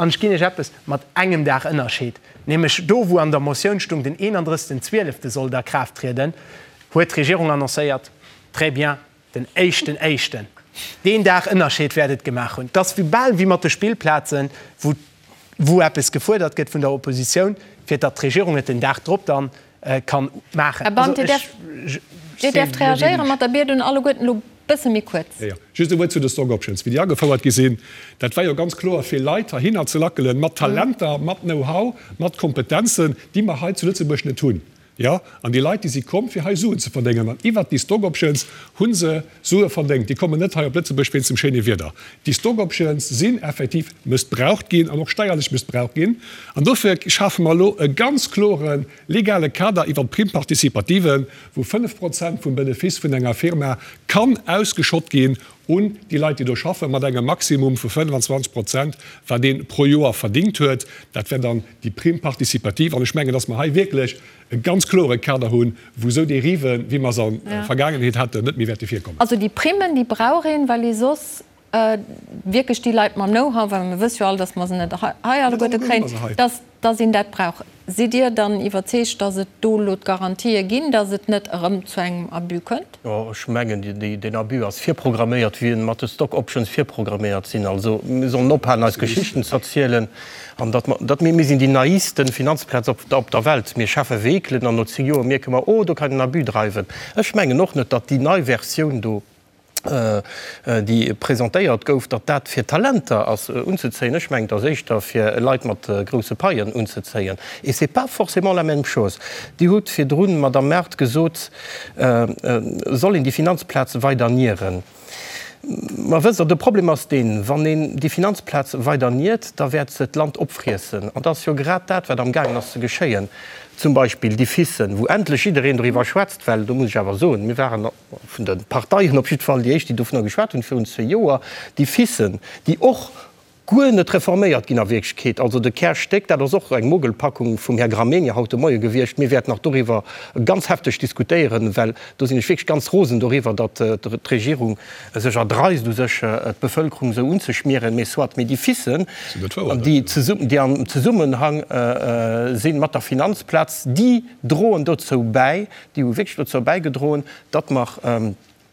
An ech ginn Iech eppes, mat engem Dag Ënnerscheed, nämlech do wou an der Motioun stung, den 31. Zwielefte sollt a Kraaft trieden, huet d'Regierung annoncéiert, très bien, den éischten éischten. Deen Dag Ënnerscheed wäert et gemaach hunn. Et ass wéi bal wéi mat de Spillplazen, wou wou eppes gefuerdert gëtt vun der Oppositioun, fir datt d'Regierung et den Dag drop dann kann maachen. Här Band, Dir däerft, Dir däerft reagéieren mat der Biet un alleguerten elo bësse méi kuerz. Jo, jo. Just e Wuert zu de Stock Options, wéi déi agefouert gi sinn. Dat war jo ganz kloer, fir Leit heihinner ze lackelen, mat Talenter, mat Know-how, mat Kompetenzen, déi mer hei zu Lëtzebuerg net hunn. Jo, an déi Leit, déi si komm, fir hei Suen ze verdéngen. An iwwert déi Stock Options hu se Sue verdéngt. Déi kommen net hei op Lëtzebuerg wéinst dem schéine Wieder. Déi Stock Options sinn effektiv mëssbraucht ginn an och steierlech mëssbraucht ginn. An dofir schafe mer elo e ganz klore legale Kader iwwert d'Prime participative, wou 5 Prozent vum Benefice vun enger Firma kann ausgeschott ginn un déi Leit, déi do schaffen, mat engem Maximum vu 25 Prozent, wat ee pro Joer verdingt huet. Dat wär dann déi Prime participative. An ech mengen, dass mer hei wierklech e ganz klore Kader hunn, wou esou Dériven, wéi mer se an der Vergaangenheet haten, net méi wäerte virkommen. Also déi Primmen, déi brauch een, well ee soss wierklech déi Leit mam Know-how, well mir wësse jo all, dass mer se net hei alleguerte kréien, dass dass een dat brauch. Sidd Dir dann iwwerzeegt, dass et do elo d'Garantië ginn, dass et net erëm zu engem Abus kënnt? Jo, ech mengen, deen Abus ass virprogramméiert, wéi en mat de Stock Options virprogramméiert sinn. Also mir sollen ophalen, eis Geschichten ze erzielen an datt mer, datt mir, mir sinn déi naivsten Finanzplaz op, op der Welt. Mir schafe Vehikelen an no 10 Joer mierke mer, oh, do kann een Abus dreiwen. Ech mengen och net, datt déi nei Versioun do, déi presentéiert gouf, datt dat fir Talenter ass unzezéien. Ech mengen, et ass éischter fir Leit mat grousse Paien unzezéien. Et c'est pas forcément la même chose. Dir hutt virdrun, Madamm Mart, gesot, soll een déi Finanzplaz weider nieren. Ma wësst Der, de Problem ass deen, wann een déi Finanzplaz weider niert, da wäert se d'Land opfriessen. An dat ass jo grad dat, wat amgaangen ass ze geschéien. Zum Beispill déi FICen, wou endlech jiddereen doriwwer schwätzt, well do muss ech awer soen, mir waren, vun de Parteien op jiddwer Fall déi éischt, déi dovunner geschwat hunn virun zwee Joer, déi FICen, déi och guer net reforméiert ginn a Wierklechkeet, also de Kärstéck, dat ass och eng Mogelpackung vum Här Gramegna haut de Moie gewiescht. Mir wäerten nach doriwwer ganz hefteg diskutéieren, well do sinn ech wierklech ganz rosen doriwwer, datt d'Regierung sech erdreist u sech d'Bevölkerung esou unzeschmieren. Mee soit, mee déi FICen, déi am Zesummenhang si mat der Finanzplaz, déi droen dozou bäi, déi hu wierklech dozou bäigedroen, datt mer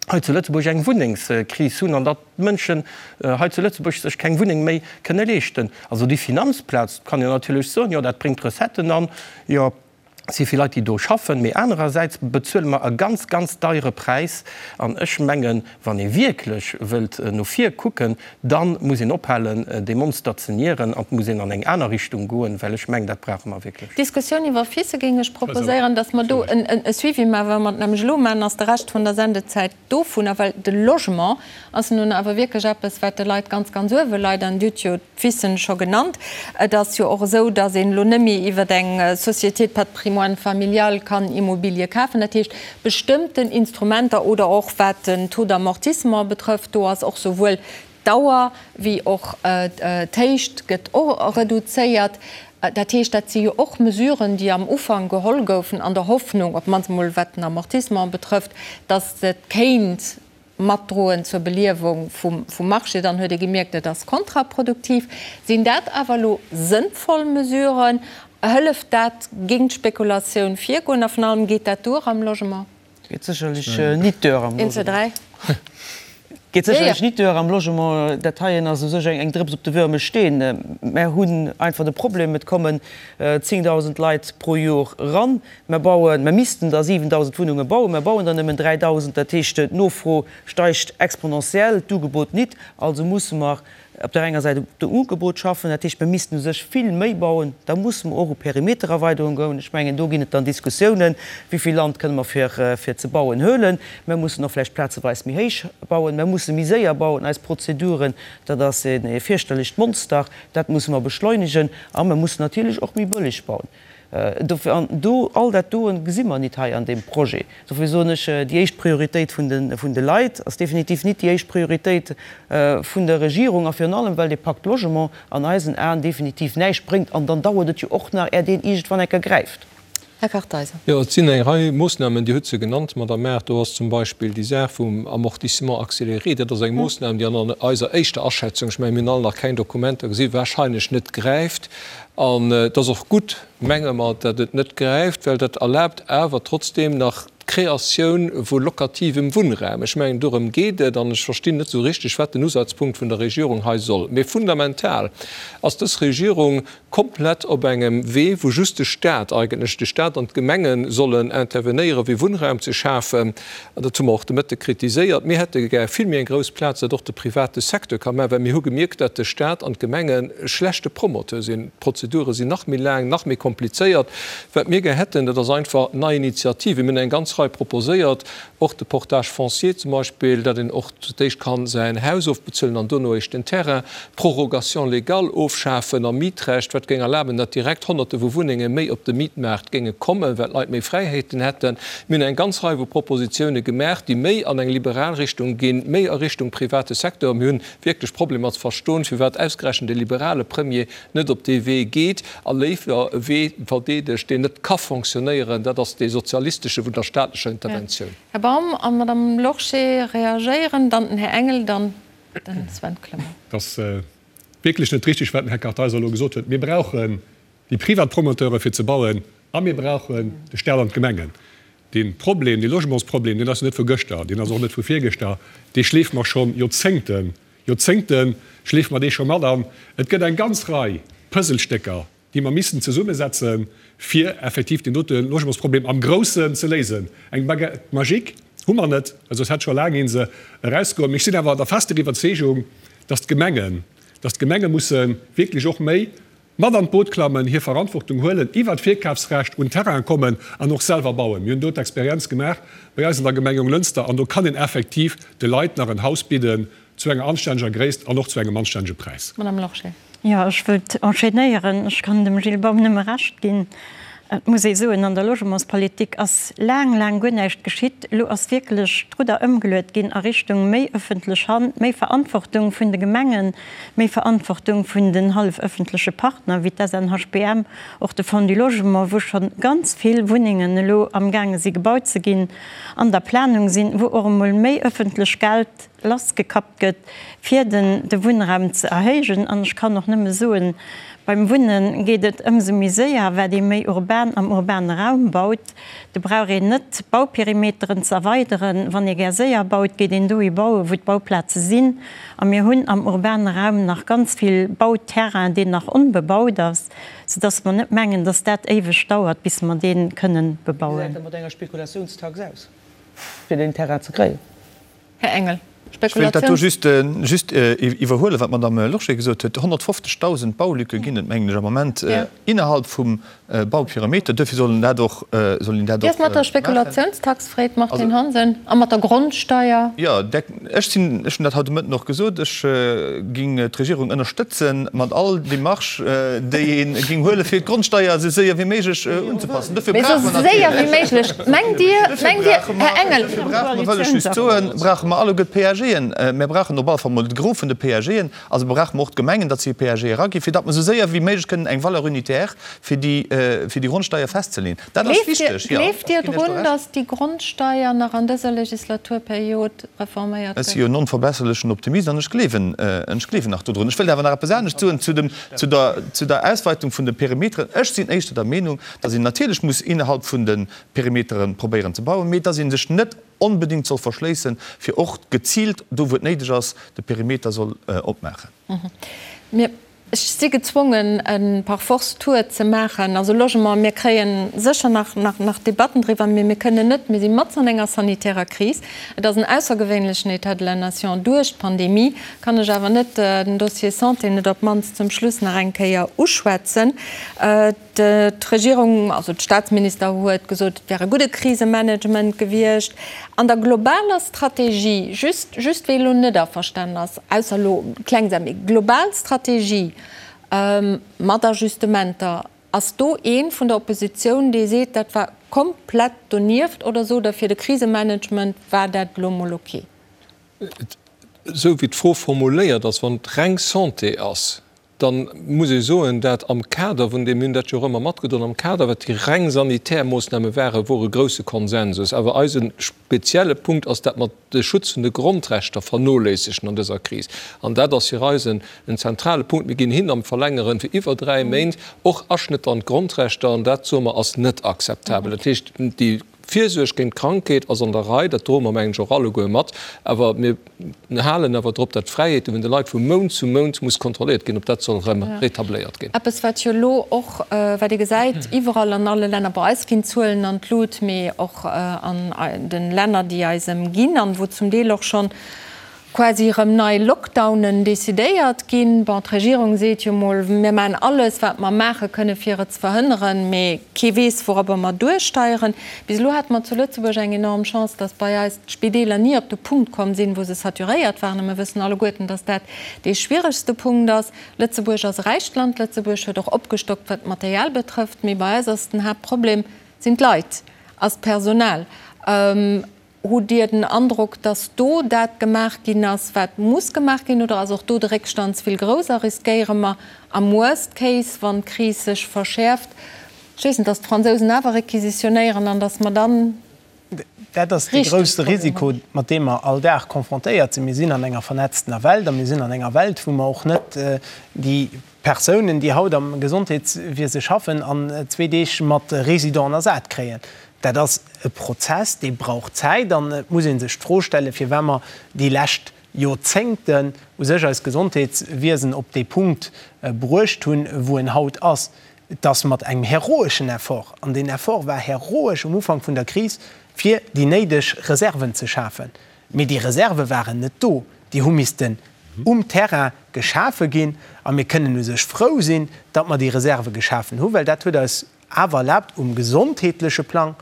hei zu Lëtzebuerg eng Wunnengskris hunn an datt d'Mënschen hei zu Lëtzebuerg sech keng Wunneng méi kënne leeschten. Also déi Finanzplaz, kann een natierlech soen, jo dat bréngt Recetten an, jo et si vill Leit déi do schaffen, mee anerersäits bezuele mer e ganz, ganz deiere Präis. An ech mengen, wann ee wierklech wëllt no vir kucken, Da muss een ophalen, dee Monster ze nieren an et muss een an eng aner Richtung goen, well ech mengen, dat brauche mer wierklech. D'Diskussioun iwwer FICE géing ech proposéieren, dass mer do e Suivi maachen. Wa mer et nämlech elo maachen, ass de Rescht vun der Sendezäit dovunner, well de Logement ass nun awer wierklech eppes, wat de Leit ganz, ganz uewe leit. An Dir hutt jo d'FICen scho genannt. Et ass jo och esou, dass een elo net méi iwwer eng Société de patrimoine familial kann Immobilie kafen. Dat heescht, bestëmmten Instrumenter oder och wat den Taux d'amortissement betrëfft, do ass och souwuel d'Dauer wéi och d'Héicht gëtt och reduzéiert. Dat heescht, dat si jo och Mesuren, déi am Ufank geholl goufen an der Hoffnung, op d'mannst emol wat den Amortissement betrëfft, dass et kéint matdroen zur Beliewung vum Marché. Dann huet ee gemierkt, et ass kontraproduktiv. Sinn dat awer elo sënnvoll Mesuren? Hëlleft dat géint d'Spekulatioun virgoen? A vun allem, geet dat duer am Logement? Geet sécherlech nit duer am Logement. Een, zwee, dräi. Geet sécherlech nit duer am Logement. Dat heien ass u sech eng Drëps op de wërme Steen. Mär hunn einfach de Problem, et kommen 10.000 Leit pro Jor eran. Mär bauen, mär missten der 7.000 Wunnunge bauen, mär bauen der nëmmen 3.000. Dat heescht, d'Nofro steigt exponentiell, d'Ugebot nit. Also musse mer op där enger Säit op dem Ugebot schaffen, dat heescht, mir missten u sech vill méi bauen, da musse mer och u Perimetererweiderung goen. Ech mengen, do ginn et dann Diskussiounen, wéi vill Land kënne mer fir fir ze bauen huelen. Mir mussen och vläicht plazeweis méi héich bauen, mir musse méi séier bauen. Eis Prozeduren, dat ass e fierchterlecht Monster, dat musse mer beschleunegen a mir mussen natierlech och méi bëlleg bauen. Dofir, an do, all dat doen gesi mer nit hei an deem Projet. Dofir soen ech, déi éischt Prioritéit vun de, vun de Leit ass definitiv nit déi éischt Prioritéit vun der Regierung, a virun allem, well dee Pacte Logement an eisen Aen definitiv näischt bréngt. An dann dauert et jo och nach, är deen iergendwann eng Kéier gräift. Här Kartheiser. Jo, et sinn eng Rei Moossnamen, Dir hutt se genannt, Madame Err. Do ass zum Beispill déi Saach vum Amortissement accéléré. Dat ass eng Moossnam, déi an eiser éischter Aschätzung, ech mengen, mir hunn all nach keng Dokumenter gesinn, wahrscheinlech net gräift. An et ass och gutt, menge mer, datt et net gräift, well dat erlaabt awer trotzdeem nach d'Kreatioun vu lokativem Wunnraum. Ech mengen, dorëm geet et. An ech verstinn net esou richteg, wat den Usazpunkt vun der Regierung hei soll. Mee fundamental ass dës Regierung komplett op engem Wee, wou just de Stat eigentlech, de Stat an d'Gemenge sollen intervenéieren, fir Wunnraum ze schafen. An dat hu mer och de Mëtte kritiséiert. Mir hätte gär vill méi eng grouss Plaz, datt och de private Secteur ka maachen, well mir hu gemierkt, datt de Stat an d'Gemenge schlechte Promoteur sinn. D'Prozedure sinn nach méi laang, nach méi komplizéiert. Wat mir gär hätten, dat ass einfach nei Initiativen. Mir hunn eng ganz Rei proposéiert, och de Portage foncier zum Beispill, datt een och zu d'éischt ka säin Haus ofbezuelen an dono eréischt den Terrain, d'Prorogation légale ofschafen am Mietrecht, wat géing erlaben, datt direkt Honnerte vu Wunnenge méi op de Mietmaart géinge kommen, well d'Leit méi Fräiheeten hätten. Mir hunn eng ganz Rei vu Propositioune gemaach, déi méi an eng liberal Richtung ginn, méi a Richtung private Secteur. Mir hunn wierklech Problemer ze verstoen, firwat ausgerechent e liberale Premier net op dee Wee geet a léiwer e Wee verdeedegt, deen net ka fonctionnéieren, dat ass dee sozialistesche vun der staatlecher Interventioun. Här Baum a Madame Lorsché reagéieren, dann den Här Engel, dann den Sven Clement. Et ass wierklech net richtig, wat den Här Kartheiser elo gesot huet. Mir brauchen déi privat Promoteure fir ze bauen a mir brauchen de Stat an d'Gemengen. Dee Problem, dee Logementsproblem, deen ass jo net vu gëschter, deen ass och net vu virgëschter, dee schleefe mer scho Joerzéngten, Joerzéngte schleefe mer dee scho mat an. Et gëtt eng ganz Rei Puzzlestécker, déi mer missten zesummesetzen, fir effektiv deen dote Logementsproblem am Groussen ze léisen. Eng Baguette magique hu mer net, well soss hätt scho laang ee se erausgeholl. Mee ech sinn awer der fester Iwwerzeegung, dass d'Gemengen, dass d'Gemenge musse wierklech och méi mat an d'Boot klammen, hir Verantwortung huelen, iwwert d'Virkafsrecht un Terrainen kommen an och selwer bauen. Mir hunn do d'Experienz gemaach bei eis an der Gemeng Jonglënster an do kann een effektiv de Leit nach en Haus bidden zu enger anstänneger Gréisst an och zu engem anstännege Präis. Madame Lorsché. Jo, ech wëllt enchaînéieren. Ech kann dem Gilles Baum nëmme Recht ginn. Et muss ee soen, an der Logementspolitik ass laang, laang guer näischt geschitt. Elo ass wierklech d'Rudder ëmgeluet ginn a Richtung méi ëffentlech Hand, méi Verantwortung vun de Gemengen, méi Verantwortung vun den hallefëffentleche Partner wéi d'SNHBM, och de Fonds du Logement, wou scho ganz vill Wunnengen elo amgaange si gebaut ze ginn, an der Planung sinn, wou och emol méi ëffentlech Geld lassgekappt gëtt, fir den de Wunnraum ze erhéijen. An ech kann och nëmme soen, beim Wunne geet et ëmsou méi séier, wat ee méi urban am urbane Raum baut. Do brauch een net d'Bauperimeteren ze erweideren. Wann ee gär séier baut, geet een dohi bauen, wou d'Bauplaze sinn. A mir hunn am urbane Raum nach ganz vill Bauterrain, deen nach onbebaut ass, soudass mer net mengen, dass dat éiweg dauert, bis mer dee kënnen bebauen. Wéi gesäit dat mat enger Spekulatiounstax aus, fir deen Terrain ze kréien? Här Engel, Ech wéilt dat do just just iwwerhuelen, wat d'Madame Lorsché gesot huet. 150.000 Baulücke ginn et, mengen ech, am Moment innerhalb vum Bauperimeter. Duerfir soll een dat och, soll een dat Wéi och ass mat der maachen. Spekulationstax, freet d'Martine Hansen, a mat der Grondsteier? Jo, ech sinn, ech hunn dat haut de Mëtten och gesot, ech ging d'Regierung ënnerstëtzen mat all Démarche, déi ee ging huelen, fir d'Grondsteier esou séier wéi méiglech unzepassen. Dofir Mee brauche esou mer séier wéi natierlech, méiglech, mengt Dir, dofir mengt Dir, brauche mer, Här Engel, dofir brauche mer, wëll ech just soen, brauche mer alleguer d'PAGen. Mir brauchen op alle Fall mol de Gros vun de PAGen. Also brauche mer och d'Gemengen, datt se hir PAG eraginn, fir datt mer esou séier wéi méiglech kënnen eng Valeur unitaire fir déi. fir déi Grondsteier festzeleeën. Dat ass wichteg, jo. Gleeft Dir drun, datt déi Grondsteier nach an dëser Legislaturperiod reforméiert gëtt? Ech si jo en onverbesserlechen Optimist an ech gleewen, ech gleewen nach dodrun. Ech wëllt awer nach eppes anescht soen zu dem, zu der, zu der Ausweitung vun de Perimeteren. Ech sinn éischter der Meenung, datt een natierlech muss innerhalb vun de Perimetere probéieren ze bauen, mee datt ee sech net onbedéngt soll verschléissen, fir och geziilt do, wou et néideg ass, de Perimeter soll opmaachen. Mir, ech si gezwongen, e par force Tour ze maachen. Also Logement, mir kréie sécher nach, nach, nach Debatten driwwer, mee mir kënnen net, mir si matz an enger sanitärer Kris, et ass en aussergewéinlechen État de la nation duerch d'Pandemie, kann ech awer net den Dossier Santé net op d'mannst zum Schluss nach eng Kéier uschwätzen. D'Regierung, also de Staatsminister huet gesot, et wär e gudde Krisemanagement gewiescht. An der globaler Strategie, just, just wee elo net averstanen ass, ausser elo kleng Saachen, mee global Strategie mat Ajustementer, ass do ee vun der Oppositioun, dee seet, dat war komplett donieft oder sot Der, fir de Krisemanagement war dat elo mol ok? Esou wéi d'Fro formuléiert ass, wann et reng Santé ass, dann muss ee soen, dat am Kader vun deem, mir hunn dat jo och ëmmer matgedroen, am Kader wat déi reng sanitär Moossname waren, wor e grouse Konsensus. Awer eise spezielle Punkt ass, dat mer de Schutz vun de Grondrechter vernoléissegen an dëser Kris. An dat ass fir eis en zentrale Punkt. Mir ginn hin am Verlängeren fir iwwer 3 Méint och Aschnëtter an d'Grondrechter, an dat, soe mer, ass net akzeptabel. Dat heescht, déi Virsuerg géint d'Krankheet ass an der Rei, dat droe mer, mengen ech, och alleguer mat. Awer mir halen awer drop, datt d'Fräiheete vun de Leit vu Mount zu Mount muss kontrolléiert ginn, ob dat soll erëm retabléiert ginn. Eppes, wat jo elo och, wat ee gesäit iwwerall an alle Länner, bei eis ginn d'Zuelen an d'Lut, mee och an de Länner, déi eis ëmginn an wou zum Deel och schonn quasi erëm nei Lockdownen decidéiert ginn. Bon, d'Regierung seet jo mol, mir maachen alles, wat mer maache kënne fir et ze verhënneren, mee kee weess, wourobber mer duersteieren. Bis elo hate mer zu Lëtzebuerg eng enorm Chance, datt bei eis d'Spideeler ni op de Punkt komm sinn, wou se saturéiert waren. A mir wëssen alleguerten, datt dat dee schwieregste Punkt ass. Lëtzebuerg ass e räicht Land, Lëtzebuerg huet och opgestockt, wat d'Material betrëfft, mee bei eis ass den Haaptproblem, sinn d'Leit, ass d'Personal. Hutt Dir den Androck, datt do dat gemaach ginn ass, wat muss gemaach ginn, oder ass och do de Réckstand ze vill grouss a riskéiere mer am Worst Case, wann d'Kris sech verschäerft, ech weess net, datt d'Fransousen awer requisitionéieren an datt mer dann Dat ass dee grousse Risiko, mat deem mer all Dag confrontéiert sinn. Mir sinn an enger vernetztener Welt a mir sinn an enger Welt, wou mer och net déi Persounen, déi haut am Gesondheetswiese schaffen, an zwee Deeg mat Résidenten ersat kréien. Dat ass e Prozess, dee brauch Zäit an et muss ee sech d'Fro stellen, firwat mer déi lescht Joerzéngten u sech eist Gesondheetswiesen op dee Punkt bruecht hunn, wou en haut ass. Et ass mat engem heroeschen Effort, an deen Effort war heroesch um Ufank vun der Kris, fir déi néideg Reserven ze schafen. Mee déi Reserve waren net do, déi hu missten um Terrain geschafe ginn. A mir kënnen u sech frou sinn, datt mer déi Reserve geschafen hunn, well dat huet eis awer erlaabt, um gesondheetleche Plang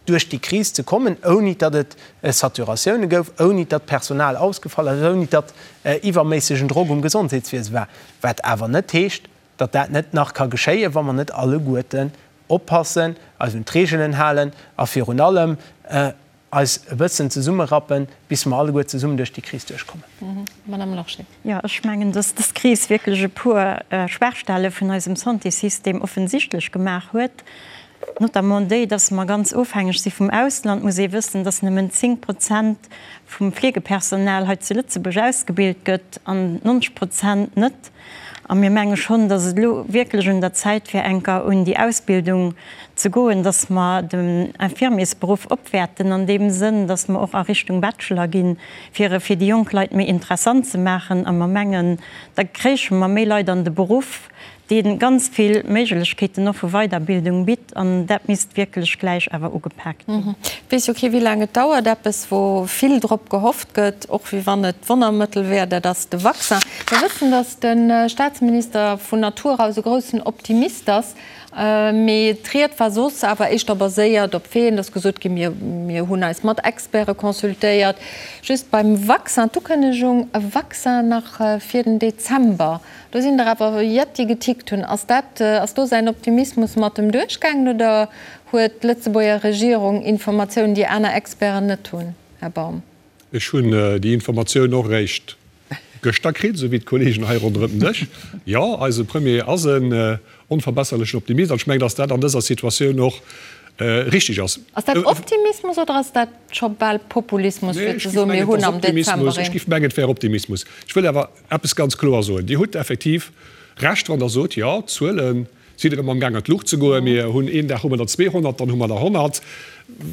duerch déi Kris ze kommen, ouni datt et Saturatioune gouf, ouni datt Personal ausgefall ass, ouni datt iwwerméissegen Drock um Gesondheetswiese war. Wat awer net heescht, datt dat net nach ka geschéien, wa mer net alleguerten oppassen, eis un d'Reegelen halen a virun allem eis e bëssen zesummerappen, bis mer alleguer zesummen duerch déi Kris duerchkommen. Madame Lorsché. Jo, ech mengen, dass dës Kris wierklech e puer Schwaachstelle vun eisem Santéssystem offensichtlech gemaach huet, notamment déi, dass mer ganz ofhängeg si vum Ausland. Muss ee wëssen, dass nëmmen 10 Prozent vum Fleegepersonal hei zu Lëtzebuerg ausgebilt gëtt an 90 Prozent net. A mir menge schonn, dass et elo wierklech un der Zäit wär, enker un déi Ausbildung ze goen, dass mer den Infirmiersberuff opwäerten an deem Sënn, dass mer och a Richtung Bachelor ginn, fir e fir déi jonk Leit méi interessant ze maachen. A mer mengen, da kréiche mer méi Leit an de Beruff, dee ganz vill Méiglechkeeten och vu Weiderbildung bitt. An dat misst wierklech gläich awer ugepaakt ginn. Et weess jo kee wéi laang et dauert. Eppes wou vill drop gehofft gëtt, och wéi wann et d'Wonnermëttel wär, dat ass de Vaccin. Mer wëssen, datt de Staatsminister vun Natur aus e groussen Optimist ass. Mee d'Ried war soss awer éischter baséiert op Faiten. Et ass gesot ginn, mir mir hunn eis mat Experte consultéiert. Just beim Vaccin, d'Ukënnegung, e Vaccin nach fir den Dezember, do sinn der awer jett, déi getickt hunn. Ass dat, ass do säin Optimismus mat em duerchgaangen oder huet d'Lëtzebuerger Regierung Informatiounen, déi aner Experten net hunn, Här Baum? Ech hunn déi Informatioun och eréischt. gëschter kritt, esou wéi d'Kollegen hei ronderëm den Dësch. Jo, eise Premier ass en onverbesserlechen Optimist an ech mengen, dass dat an dëser Situatioun och richtig ass. Ass dat Optimismus oder ass dat scho bal Populismus, fir ze soen, mir hunn am Dezember een. Ech géif mengen, et wär Optimismus. Ech wëll awer eppes ganz kloer soen, Dir hutt effektiv Recht, wann Der sot, jo, d'Zuele sinn erëm amgaang an d'Luucht ze goen. Mir hunn een Dag hu mer der 200, dann hu mer der 100.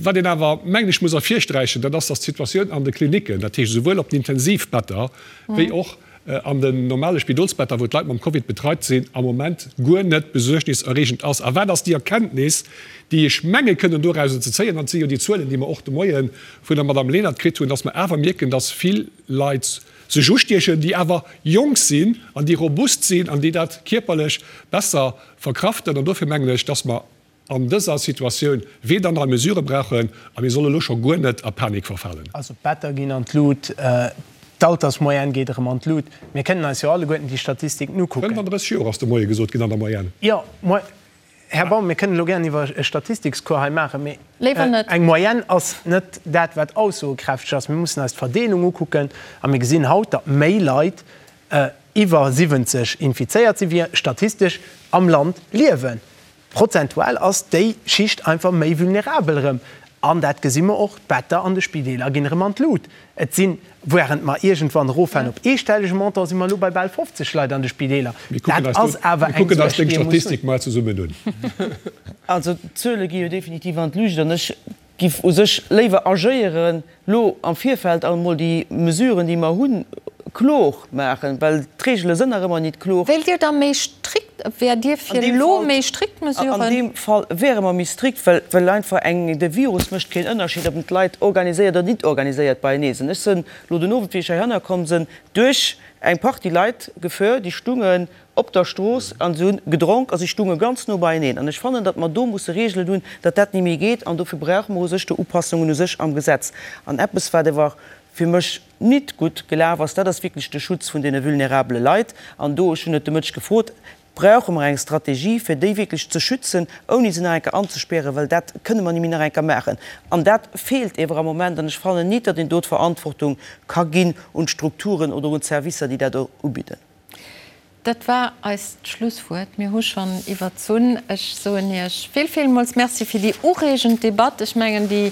Wat een awer, mengen ech, muss ervirsträichen, dat ass, dass d'Situatioun an de Klinicken, dat heescht esouwuel op den Intensivbetter wéi och an den normale Spidolsbetter, wou d'Leit mam Covid betreit sinn, am Moment guer net besuergniserreegend ass. A wat ass déi Erkenntnis, déi ech menge kënnen dorauser ze zéien, an et si jo déi Zuelen, déi mer och de Moie vun der Madame Lenert kritt hunn, dass mer awer mierken, dass vill Leit sech ustiechen, déi awer jonk sinn an déi robust sinn an déi dat kierperlech besser verkraften. An dofir mengen ech, dass mer an dëser Situatioun weder nei Mesurë brauchen a mir solle lo scho guer net a Panik verfalen. Also d'Better ginn an d'Lut, d'Altersmoyenne geet erëm an d'Lut. Mir kënnen eis jo alleguerten déi Statistiken ukucken. 35 Joer ass de Moie gesot ginn an der Moyenne. Jo, Här Baum, mir kënnen elo gären iwwer e Statistikscours hei maachen, mee eng Moyenne ass net dat, wat aussogekräfteg ass. Mir mussen eis d'Verdeelung ukucken a mir gesinn haut, datt méi Leit iwwer 70 infizéiert sinn, wéi statistesch am Land liewen. Prozentual ass déi Schicht einfach méi vulnerabel erëm. An dat gesi mer och, d'Better an de Spideeler ginn erëm an d'Lut. Et sinn, wärend mer iergendwann eroffahren op eestellege Montant, si mer elo bei bal 50 Leit an de Spideeler. Dat ass awer eng Suerg, déi ee muss hunn. Also d'Zuele gi jo definitiv an d'Luucht an ech giff u sech léiwer agéieren, lo am Virfeld emol déi Mesuren, déi mer hunn, klor maachen, well d'Regele sënn nach ëmmer nit klor. Wéilt Dir da méi strikt, wäert Dir fir elo méi strikt Mesuren? An deem Fall wäre mer méi strikt, well, well einfach eng, de Virus mécht keen Ënnerscheed, ob en d'Leit organiséiert oder nit organiséiert beienee sinn. Ech sënn lo den Owend, wéi ech heihanner komm sënn, duerch eng Partie Leit gefuer, déi stungen op der Strooss an se hunn gedronk a si stunge ganz no beieneen. An ech fannen, datt mer do musse Regelen hunn, datt dat ni méi geet. An dofir brauche mer u sech do Upassungen u sech am Gesetz. An eppes, wat ewer fir mech nit gutt gelaf ass, dat ass wierklech de Schutz vun deene vulnerabele Leit. An do, ech hunn et de Mëtteg gefrot, brauche mer eng Strategie, fir déi wierklech ze schützen, ouni se nach eng Kéier anzespären, well dat kënne mer ni méi nach eng Kéier maachen. An dat feelt ewer am Moment. An ech fannen nit, datt een do d'Verantwortung ka ginn un d'Strukturen oder un d'Servicer, déi dat ubidden. Dat war eist Schlusswuert. Mir hu schonn iwwerzunn. Ech soen Iech vill, villmools Merci fir déi ureegend Debatt. Ech mengen, déi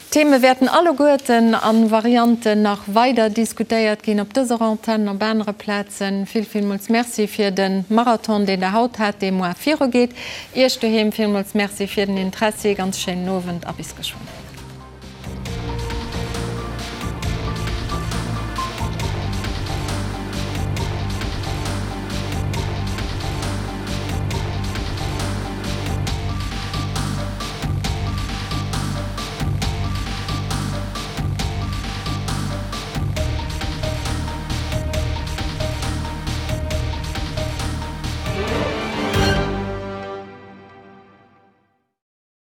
Theme wäerten alleguerten a Varianten nach weider diskutéiert ginn, op dëser Antenn, op anere Plazen. Vill, villmools Merci fir de Marathon, deen Der haut hat, dee muar virugeet. Iech doheem villmools Merci fir den Interessi. Ganz schéinen Owend a bis geschwënn.